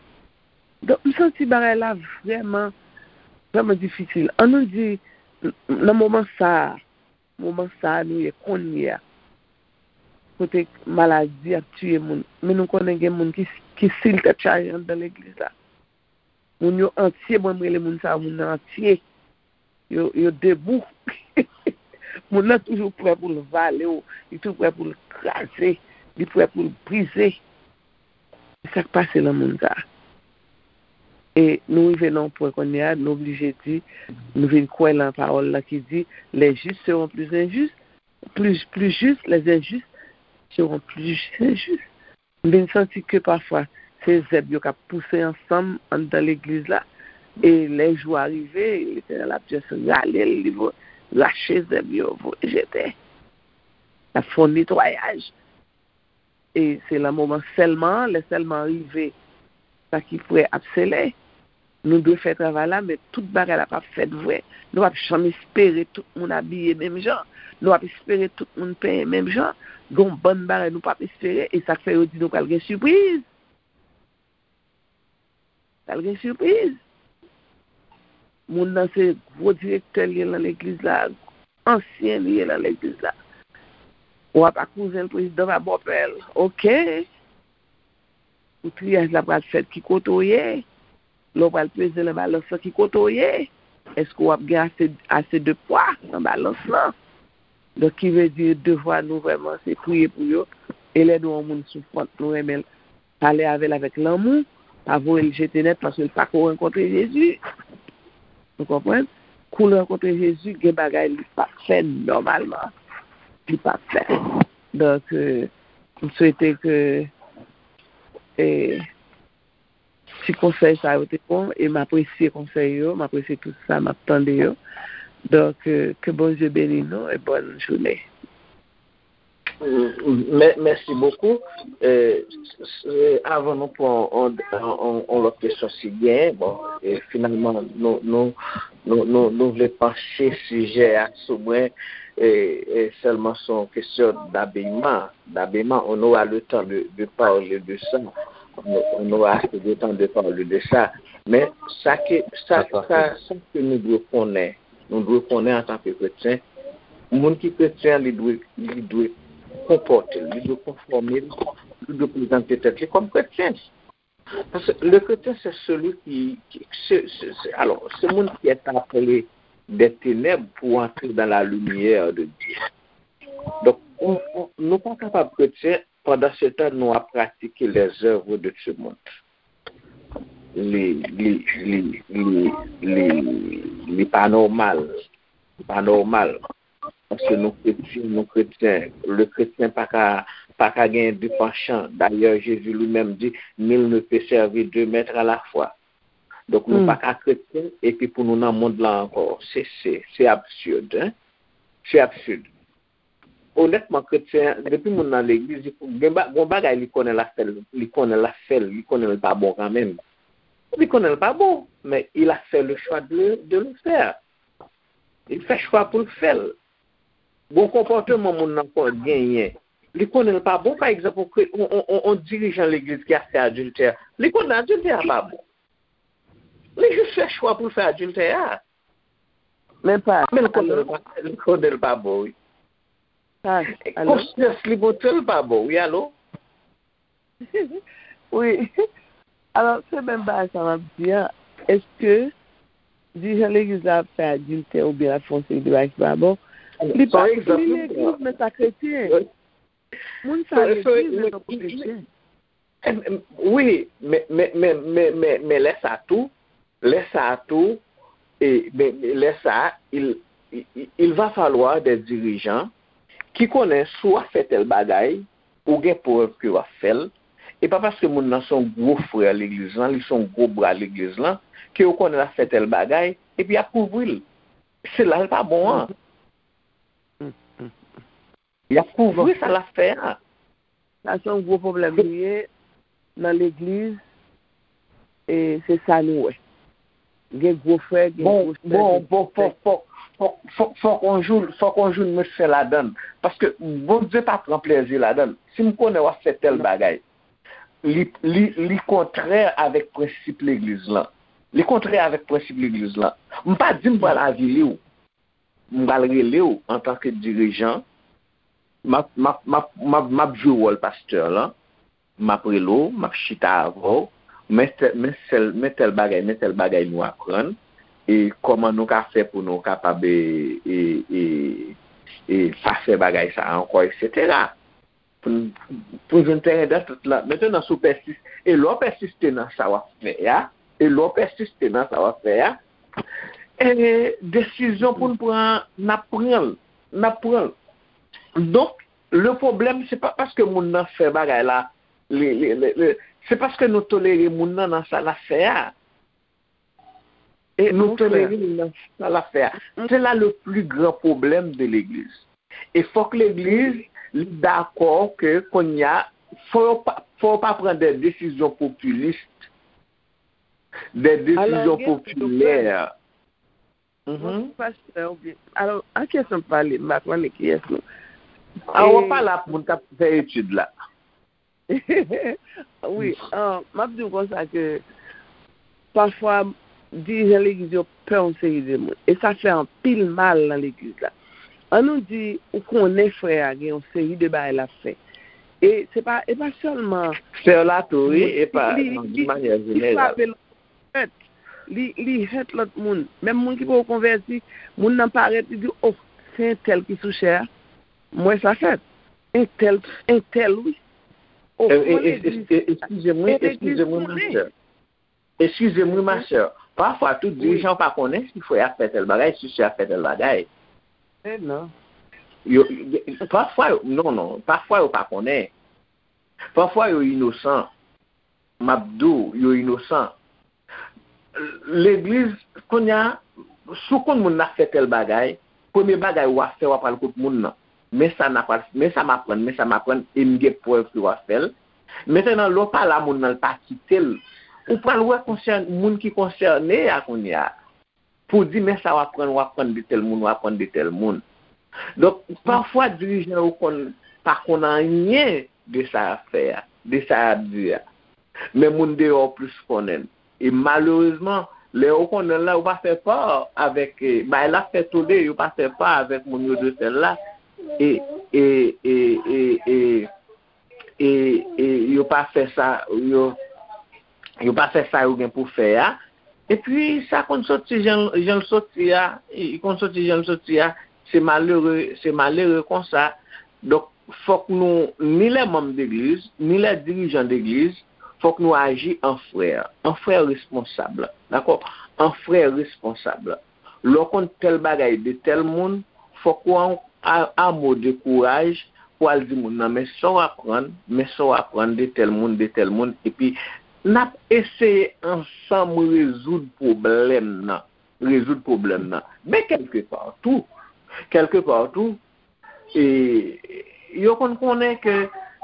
Donk, m santi bagay la vrèman, vrèman difisil. Ann nou di, n-, nan moman sa a, moman sa a nou ye kounye a, kote maladi ap tiye moun. Men nou konnen gen moun ki, ki sil tèt chaje anndan legliz la. Moun yo antye, mwen m rele moun sa yo moun antye. Yo, yo debou. Moun nan toujou prè pou l vale w, li toujou prè pou l kraze, li prè pou l brize. Se sa k pase nan moun sa. E nou rive nan yon pwen kounye a, nou oblije di, nou vin kwè nan pawòl la ki di, les justes seront plus injustes, plus, plus justes, les injustes seront plus injustes. M vin santi ke pafwa se zèb yo k ap pouse ansanm anndan legliz la, e lè jou a rive, Letènèl ap just rale l, li vo-, rache zèb yo, voye jete. L ap fè yon netwayaj. E se nan moman sèlman an, lè sèlman an rive, sa ki prè ap sele. Nou dwe fè travay la, men tout bagay la p ap fèt vre. Nou p ap janm espere tout moun abiye menm jan. Nou p ap espere tout moun penyen menm jan. Gen yon bann bagay nou p ap espere, e sa k fè yo di nou pral gen sipriz. Pral gen sipriz. Moun nan se gwo direktè li ye nan legliz la, ansyen li ye nan legliz la. W ap a kouzen l, prezidan pa bòpè l. Oke. Pou triyaj la pral fèt, ki kote w ye? Lè w pral peze nan balans lan, ki kote w ye? Èske w ap gen ase, ase de pwa nan balans lan? Donk, ki vle di, devwa nou vrèman, se priye pou yo. E lè nou wè yon moun soufrant, nou renmen l, pale avè l avèk lanmou, pa voye l jete nèt, paske l pako rankontre Jezi. Ou konprann? Kou l rankontre Jezi, gen bagay li p ap fè nòmalman. Li p ap fè. Donk, euh, m swete ke, eh, ti konsèy sa yo te bon, e m apresye konsèy yo, m apresye tout sa m ap tande yo. Donk, euh, ke Bondye beni nou e bòn jounen. Mè- Mèsi bokou. Eh, s- s- eh, avan nou pran on, on, on, on lòt kesyon si genyen, bon, eh, finalman, nou, nou, nou, nou, nou vle panche sijè a sou mwen, eh, eh, sèlman se yon kesyon d'abillement, d'abillement, on aura le temps de, de parler de ça. On, on aura assez de temps de parler de ça. Men sa ke, sa, sa, sa ke nou dwe konnen, nou dwe konnen antanke kretyen, moun ki kretyen, li dwe, li dwe konpòte l, li dwe konfòme l, li dwe prezante tèt li kòm kretyen. Paske le chrétien, c'est celui qui, qui c'est, c'est, c'est- alors, c'est moun qui est appelé des ténèbres pour entrer dans la lumière de Dieu. Donk, on, on, nou pa kapab kretyen pandan se tan nou ap pratike les œuvres de ce monde. Li, li, li, li, li, li pa nòmal. Li pa nòmal. Paske nou kretyen, nou kretyen. Le chrétien pa ka, pa ka gen de panchan. Dayè, Jezi li menm di, nul ne peut servir deux maîtres à la fois. Donk, nou pa ka kretyen epi pou nou nan mond lan ankò. Se, se, se absid, hein? Se absid. Onètman, kretyen, depi moun nan legliz, li gen ba- gon bagay li konnen l ap fè l, li konnen l ap fè l, li konnen l pa bon kanmenm. Li konnen l pa bon, men il a fait le choix de, de le faire. Li fè chwa pou l fè l. Gon konpòteman moun nan kon genyen. Li konnen l pa bon, pa egzanp, on, on, on, on dirijan legliz ki ap fè adiltè. Li konnen adiltè a pa bon. Li jis fè chwa pou l fè adiltè a. Men pa. Men l konnen l pa, li konnen l pa bon, wi. Konsyans li montre l pa bon, wi, alo? Wi. Alò, se menm bagay sa m ap di a. Èske dirijan legliz la ap fè adiltè oubyen l ap fè yon seri de bagay ki pa bon? Li pa li legliz, men sa kretyen. Moun sa legliz, men tankou kretyen. Wi, men, men, men, men, men, men lè sa tou, lè sa tou, e, men, men lè sa, il, il, il va falloir des dirigeants ki konnen si w ap fè tèl bagay, ou gen prèv ke w ap fè l. E pa paske moun nan se yon gwo frè legliz lan, li se yon gwo bra legliz lan, ke yo konnen l ap fè tèl bagay, epi y ap kouvri l. Se la l pa bon an. Y ap kouvri sa l ap fè a. Sa se yon gwo pwoblèm li ye nan legliz, e se sa nou wè. Gen gwo frè, gen gwo sè. Bon, bon, fòk, fòk, fòk, fòk, fòk on jou, fòk on jou n met fen ladan l. Paske Bondye pa pran plezi ladan l. Si m konnen w ap fè tèl bagay, li, li, li kontrè avèk prensip legliz lan. Li kontrè avèk prensip legliz lan. M pa di m pral avili w. M pral rele w antanke dirijan. M ap, m ap, m ap, m ap, m ap jwe wòl pastè lan. M ap rele w, m ap chita avè w. Men tèl, men sèl, men tèl bagay, men tèl bagay nou aprann. E kòman nou ka fè pou nou kapab e, e, e, e pa fè bagay sa a ankò, etsetera. Pou n, pou n jwenn teren dantant la. Mentenan, si w pèsis, e lè w pèsiste nan sa w ap fè a, e lè w pèsiste nan sa w ap fè a, e desizyon pou n pran, n ap pran l. N ap pran l. Donk, le pwoblèm, se pa paske moun nan fè bagay la, li, li, li, li, se paske nou tolere moun nan nan sa l ap fè a. E nou tolere l nan sa l ap fè a. Se la le pli gran pwoblèm de legliz. E fòk legliz li dakò ke kounye a fò yo pa, fò yo pa pran de desizyon popilis, de desizyon popilè. Pastè, oubyen, alò, a kiyès n ap pale? M pa konnen kiyès nou. A, w ap pale ak moun k ap fè etid la. Wi, m ap di w konsa ke pafwa dirijan legliz yo pè yon seri de moun. E sa fè anpil mal nan legliz la. An nou di, ou konnen frè a gen yon seri de bagay l ap fè. E se pa, e pa sèlman. Fè l la tou, wi, e pa nan yon manyè jeneral. Hèt. Li, li hèt lòt moun. Menm moun ki poko konvèti, moun nan parèt, li di, oh, se entèl ki sou chè a. M wè sa fèt. Entèl, entèl, wi. Oh, kòman legliz, eskize m, wi, eskize m, wi, ma sè. Eskize m, wi, ma sè. Pafwa, tout dirijan pa konnen si frè a fè tèl bagay, si sè a fè tèl bagay. Non. Yo, pafwa, non, non. Pafwa, yo pa konnen. Pafwa, yo inosan. M ap di w, yo inosan. Legliz, kounye a, si w konn moun nan ap fè tèl bagay, premye bagay w ap fè, w ap al kot moun nan. Men sa n ap, men sa m aprann, men sa m aprann, e m gen prèv ke w ap fè l. Mentenan, lè w pale a moun nan, l pa kite l, ou pral wè konsèn, moun ki konsène a kounye a. Pou di, men sa w aprann, w aprann de tèl moun, w aprann de tèl moun. Donk, pafwa, dirijan yo konn pa konn anyen de sa y ap fè a, de sa y ap di a. Men moun deyò plis konnen l. E malerezman, lè yo konnen l la, yo pa fè pa avèk, eh, bagay la fè tole, yo pa fè pa avèk moun yo dwe fè l la. E, e, e, e, e, e, e yo pa fè sa, yo, yo pa fè sa yo gen pou fè a. Epi sa konn soti jan, jan l soti a, li konn soti jan l soti a, se malere, se malere konsa. Donk, fòk nou, ni lè manm degliz, ni lè dirijan degliz, fòk nou aji an frè, an frè responsab, dakò? An frè responsab. Lè w konn tèl bagay de tèl moun, fòk ou an, a, a mo de kouraj pou al di moun nan, men sa w aprann, men sa w aprann de tèl moun, de tèl moun, epi n ap eseye ansanm rezoud pwoblèm nan, rezoud pwoblèm nan. Men kèlkepa tou, kèlkepa tou, e, yo konn konnen ke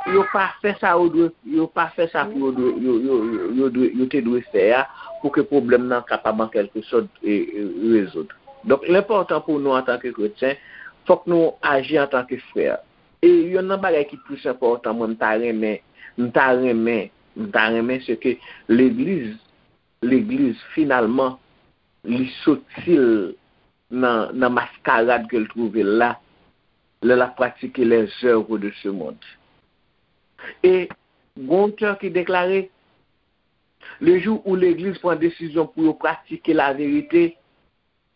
yo pa fè sa yo dwe, yo pa fè sa pou yo dwe, yo, yo, yo, yo dwe, yo te dwe fè a, pou ke pwoblèm nan kapab an kèlke sòt, e, e, rezoud. Donk, l enpòtan pou nou antanke kretyen, fòk nou aji antanke frè. E yonn nan bagay ki plis enpòtan, mwen, m ta renmen, m ta renmen, m ta renmen, se ke legliz, legliz, finalman, li soti l nan, nan maskarad ke l twouve l la, lè l ap pratike les œuvres de ce monde. E gon otè ki deklare, le jour où legliz pran desizyon pou yo pratike laverite,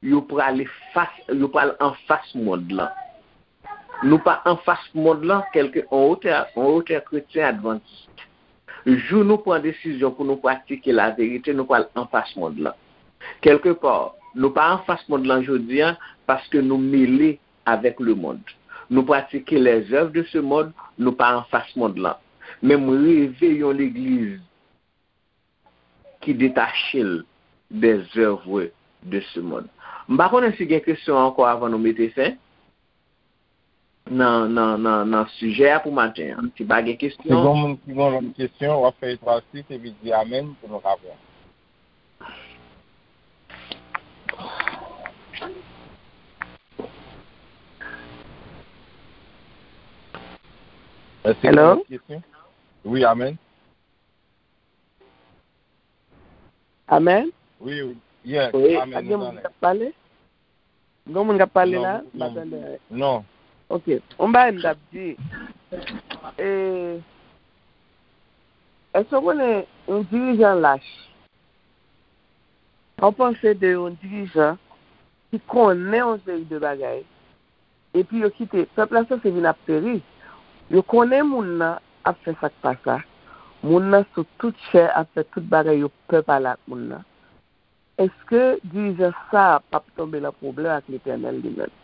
yo prale fas, yo pral anfas mond lan. Nou pa anfas mond lan, kèlke on otè, on otè kretyen advantis. Jou nou pran desizyon pou nou pratike laverite, nou pral anfas mond lan. Kèlkepa, nou pa anfas mond lan jodi a paske nou mele avèk lemonn. Nou pratike les œuvres de ce monde, nou pa anfas mond lan. Men m reve yon legliz ki detache l des œuvres de ce monde. M pa konnen si gen kesyon ankò avan nou mete fen nan, nan, nan, nan sijè a pou maten an. Si pa gen kesyon. Si gen moun ki gen lòt kesyon, w ap fè etwal sis epi di amèn pou nou ka pran. Èske gen lòt kesyon? Wi, amèn. Amèn. Wi, wi. Yes, amèn. Gen moun k ap pale? Gen moun k ap pale la? M pa tande. Non. Ok. Yon bagay m t ap di. E, èske w konnen yon dirijan lach? Ou panse de yon dirijan ki konnen yon seri de bagay, epi yo kite, pèp la sanse vin ap peri. Yo konnen moun nan ap fè sa k pa sa. Moun nan sou tout chè ap fè tout bagay yo pè pale ak moun nan. Èske dirijan sa a p ap tonbe nan pwoblèm ak Letènèl li menm?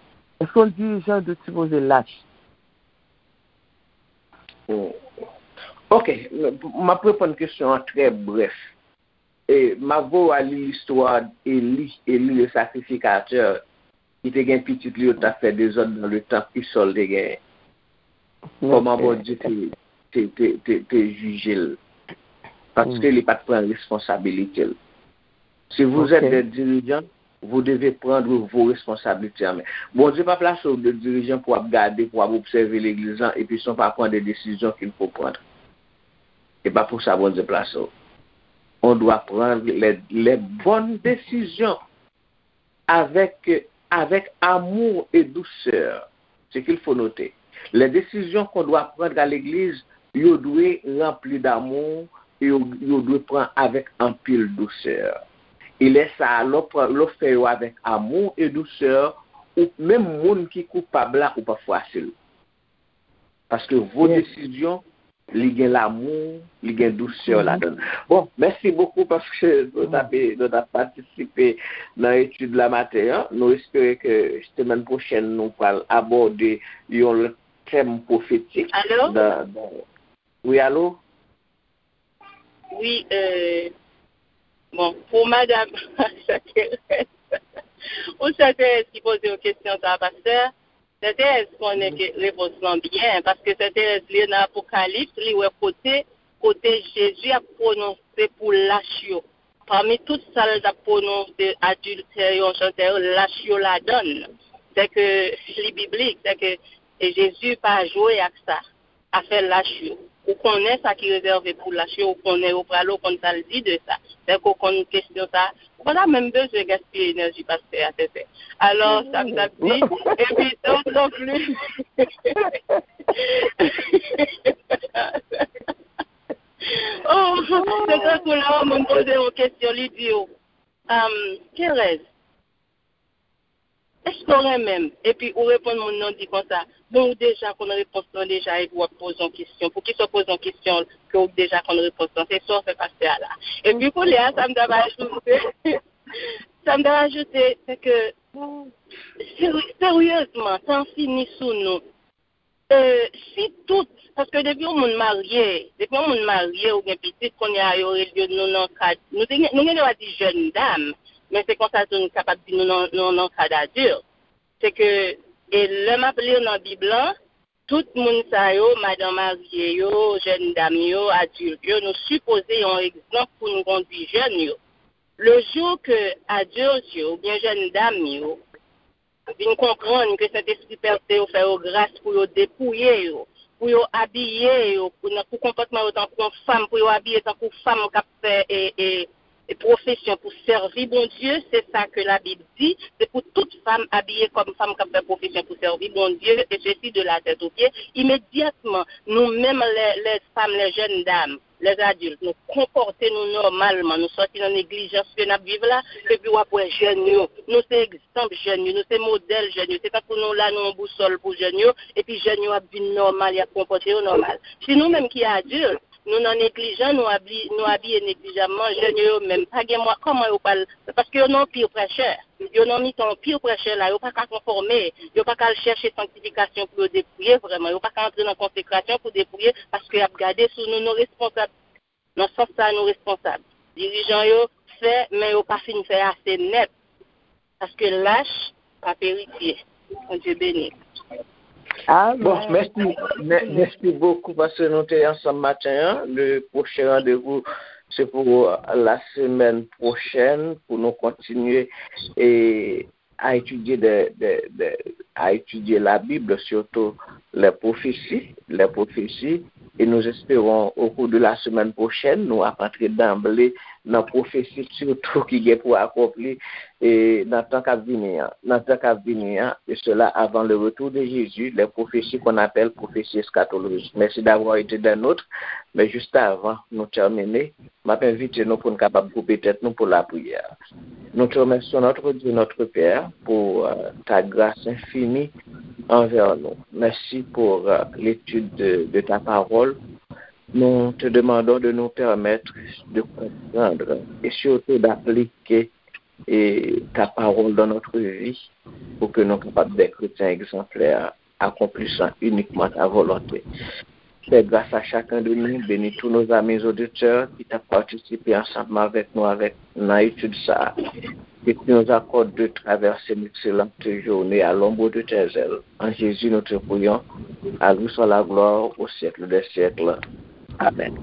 Èske yon dirijan dwe sipoze lach? Hmm. Ok, m ap reponn kesyon an trè brèf. E, m ap voye w al li listwa Eli, Eli le sacrificateur, ki te gen pitit li yo t ap fè dezòd nan le tanp, ki sa l te genyen? Kòman Bondye te, te, te, te, te jije l? Paske li pa t pran responsabilite l. Si vous êtes des dirigeants, vous devez prendre vos responsabilités en main. Bondye pa plase w de dirijan pou w ap gade, pou w ap obsève legliz lan, epi san w pa pran de desizyon qu'il faut prendre. E pa pou sa Bondye plase w. On doit prendre les, les bonnes décisions avec, avec amour et douceur. Ce qu'il faut noter. Les décisions qu'on doit prendre à l'église, yo dwe ranpli d'amour, e yo, yo dwe pran avèk anpil dousè. E lè sa a, lè w pran, lè w fè yo avèk amour et douceur, ou, menm moun ki koupab la, ou p ap fwase l. Paske vo desizyon, li gen lamou, li gen dousè ladan l. Bon, mèsi bokou paske nou t ap, nou t ap patisipe nan etid la maten an. Nou espere ke semèn pwochèn nou pral abòde yon lòt tèm pwofetik. Alo? Nan, nan, wi, alo? Wi, euh, bon, pou madanm Sè Terèz, ou Sè Terèz ki poze yon kesyon sa, pastè. Sè Terèz konnen ke repons lan byen, paske Sè Terèz li nan Apokalips, li wè kote, kote Jezi ap pwononse pou lach yo. Pami tout sa l t ap pwononse, adiltè yo, chantè yo, lach yo ladan l. Sè ke li biblik, sè ke e Jezi pa jwe ak sa, afè lach yo. Ou konnen sa ki rezève pou lach yo, ou konnen yo prale, ou konn sa l di de sa. Sè ke ou konn kesyon sa, ou pa ta menm bezwen gaspiye enèji pastè a, sè, sè. Alò, sa m t ap di, epi, donk, non plis. Oh, se tankou lè yon moun poze yon kesyon, li di w, um, Thérèse, èske w renmen m? Epi ou reponn moun nan, di konsa, bon, ou deja konn repons lan deja, epi w ap poze yon kesyon. Poukisa w poze yon kesyon ke w deja konn repons lan? Se sa w fè pastè a la. Epi kounye a, sa m t ap ajoute, sa m t ap ajoute, se ke, seri- seryezman, tan fini sou nou. E, si tout, paske depi yon moun marye, depi yon moun marye ou gen pitit, kounye a yo rele yo, nou nan kad, nou te gen, nou gen dwa di jèn dam, men se konsa tou nou kapab di nou nan, nou nan kad adilt. Se ke, e lè m ap li nan Bib lan, tout moun sa yo, madan marye yo, jèn dam yo, adilt yo, nou sipoze yon egzanp pou nou kondui jèn yo. Le jou ke adilt yo oubyen jèn dam yo vin konprann ke Sentespri pèse yo, fè yo gras pou yo depouye yo, pou yo abiye yo, pou, nan, pou konpòtman yo tankou yon fanm, pou yo abiye tankou fanm k ap fè e, e, e pwofesyon pou sèvi Bondye, se sa ke Labib di, se pou tout fanm abiye kòm fanm k ap fè pwofesyon pou sèvi Bondye, e sesi de la tèt o pye. Imedyatman, nou menm, lè, lè fanm, lè jèn dam, lè adilt, nou konpòte nou nòmalman, nou sòti nan neglijans ke n ap viv la, epi w ap wè jèn yo, nou se egzanp jèn yo, nou se modèl jèn yo, se tankou nou la, nou yon bousòl pou jèn yo, epi jèn yo ap vin nòmal, y ap konpòte yo nòmal. Si nou menm ki adilt, nou nan neglijan, nou abi-, nou abiye neglijamman, jèn yo, yo menm, pa gen mwa-, kòman yo pral, paske yo nan peer pressure. Yo nan mitan yon peer pressure la, yo pa ka konfòme, yo pa ka al chèche sanktifikasyon pou yo depouye vrèman, yo pa ka antre nan konsekrasyon pou depouye, paske y ap gade sou nou, nou responsab. Nan sans sa, nou responsab. Dirijan yo fè, men yo pa fin fè ase nèt, paske lach p ap eritye. Bondye beni. Bon, mèsi, mè- mèsi bokou paske nou te ansanm maten an. Le pwochen randevou, se pou, euh, la semèn pwochèn, pou nou kontinye e a etidye de, de, de, a etidye Labib, sitou les prophéties, les prophéties, et nous espérons au cours de la semaine prochaine, nou ap antre danble nan pwofesi sitou ki gen pou akonpli e nan tan k ap vini an, nan tan k ap vini an, et cela avant le retour de Jésus, les prophéties qu'on appelle prophéties eschatologiques. Merci d'avoir été des nôtres, mais juste avant nou tèmine, m ap envite nou pou n kapab koupe tèt nou pou lapriyè. Nous te remercions, notre Dieu, notre Père, pour euh, ta grâce infinie envers nous. Merci pour euh, l'étude de, de ta parole. Nous te demandons de nous permettre de comprendre et surtout d'appliquer et ta parole dans notre vie pour que nous capables d'être chrétiens exemplaires, accomplissant uniquement ta volonté. Fais grâce à chacun de nous, bénis tous nos amis auditeurs qui t'ont participé ensemble avec nous avec dans l'étude ça. Que tu nous accordes de traverser une excellente journée à l'ombre de tes ailes. En Jésus, nous te prions. À lui soit la gloire au siècle des siècles. Amen.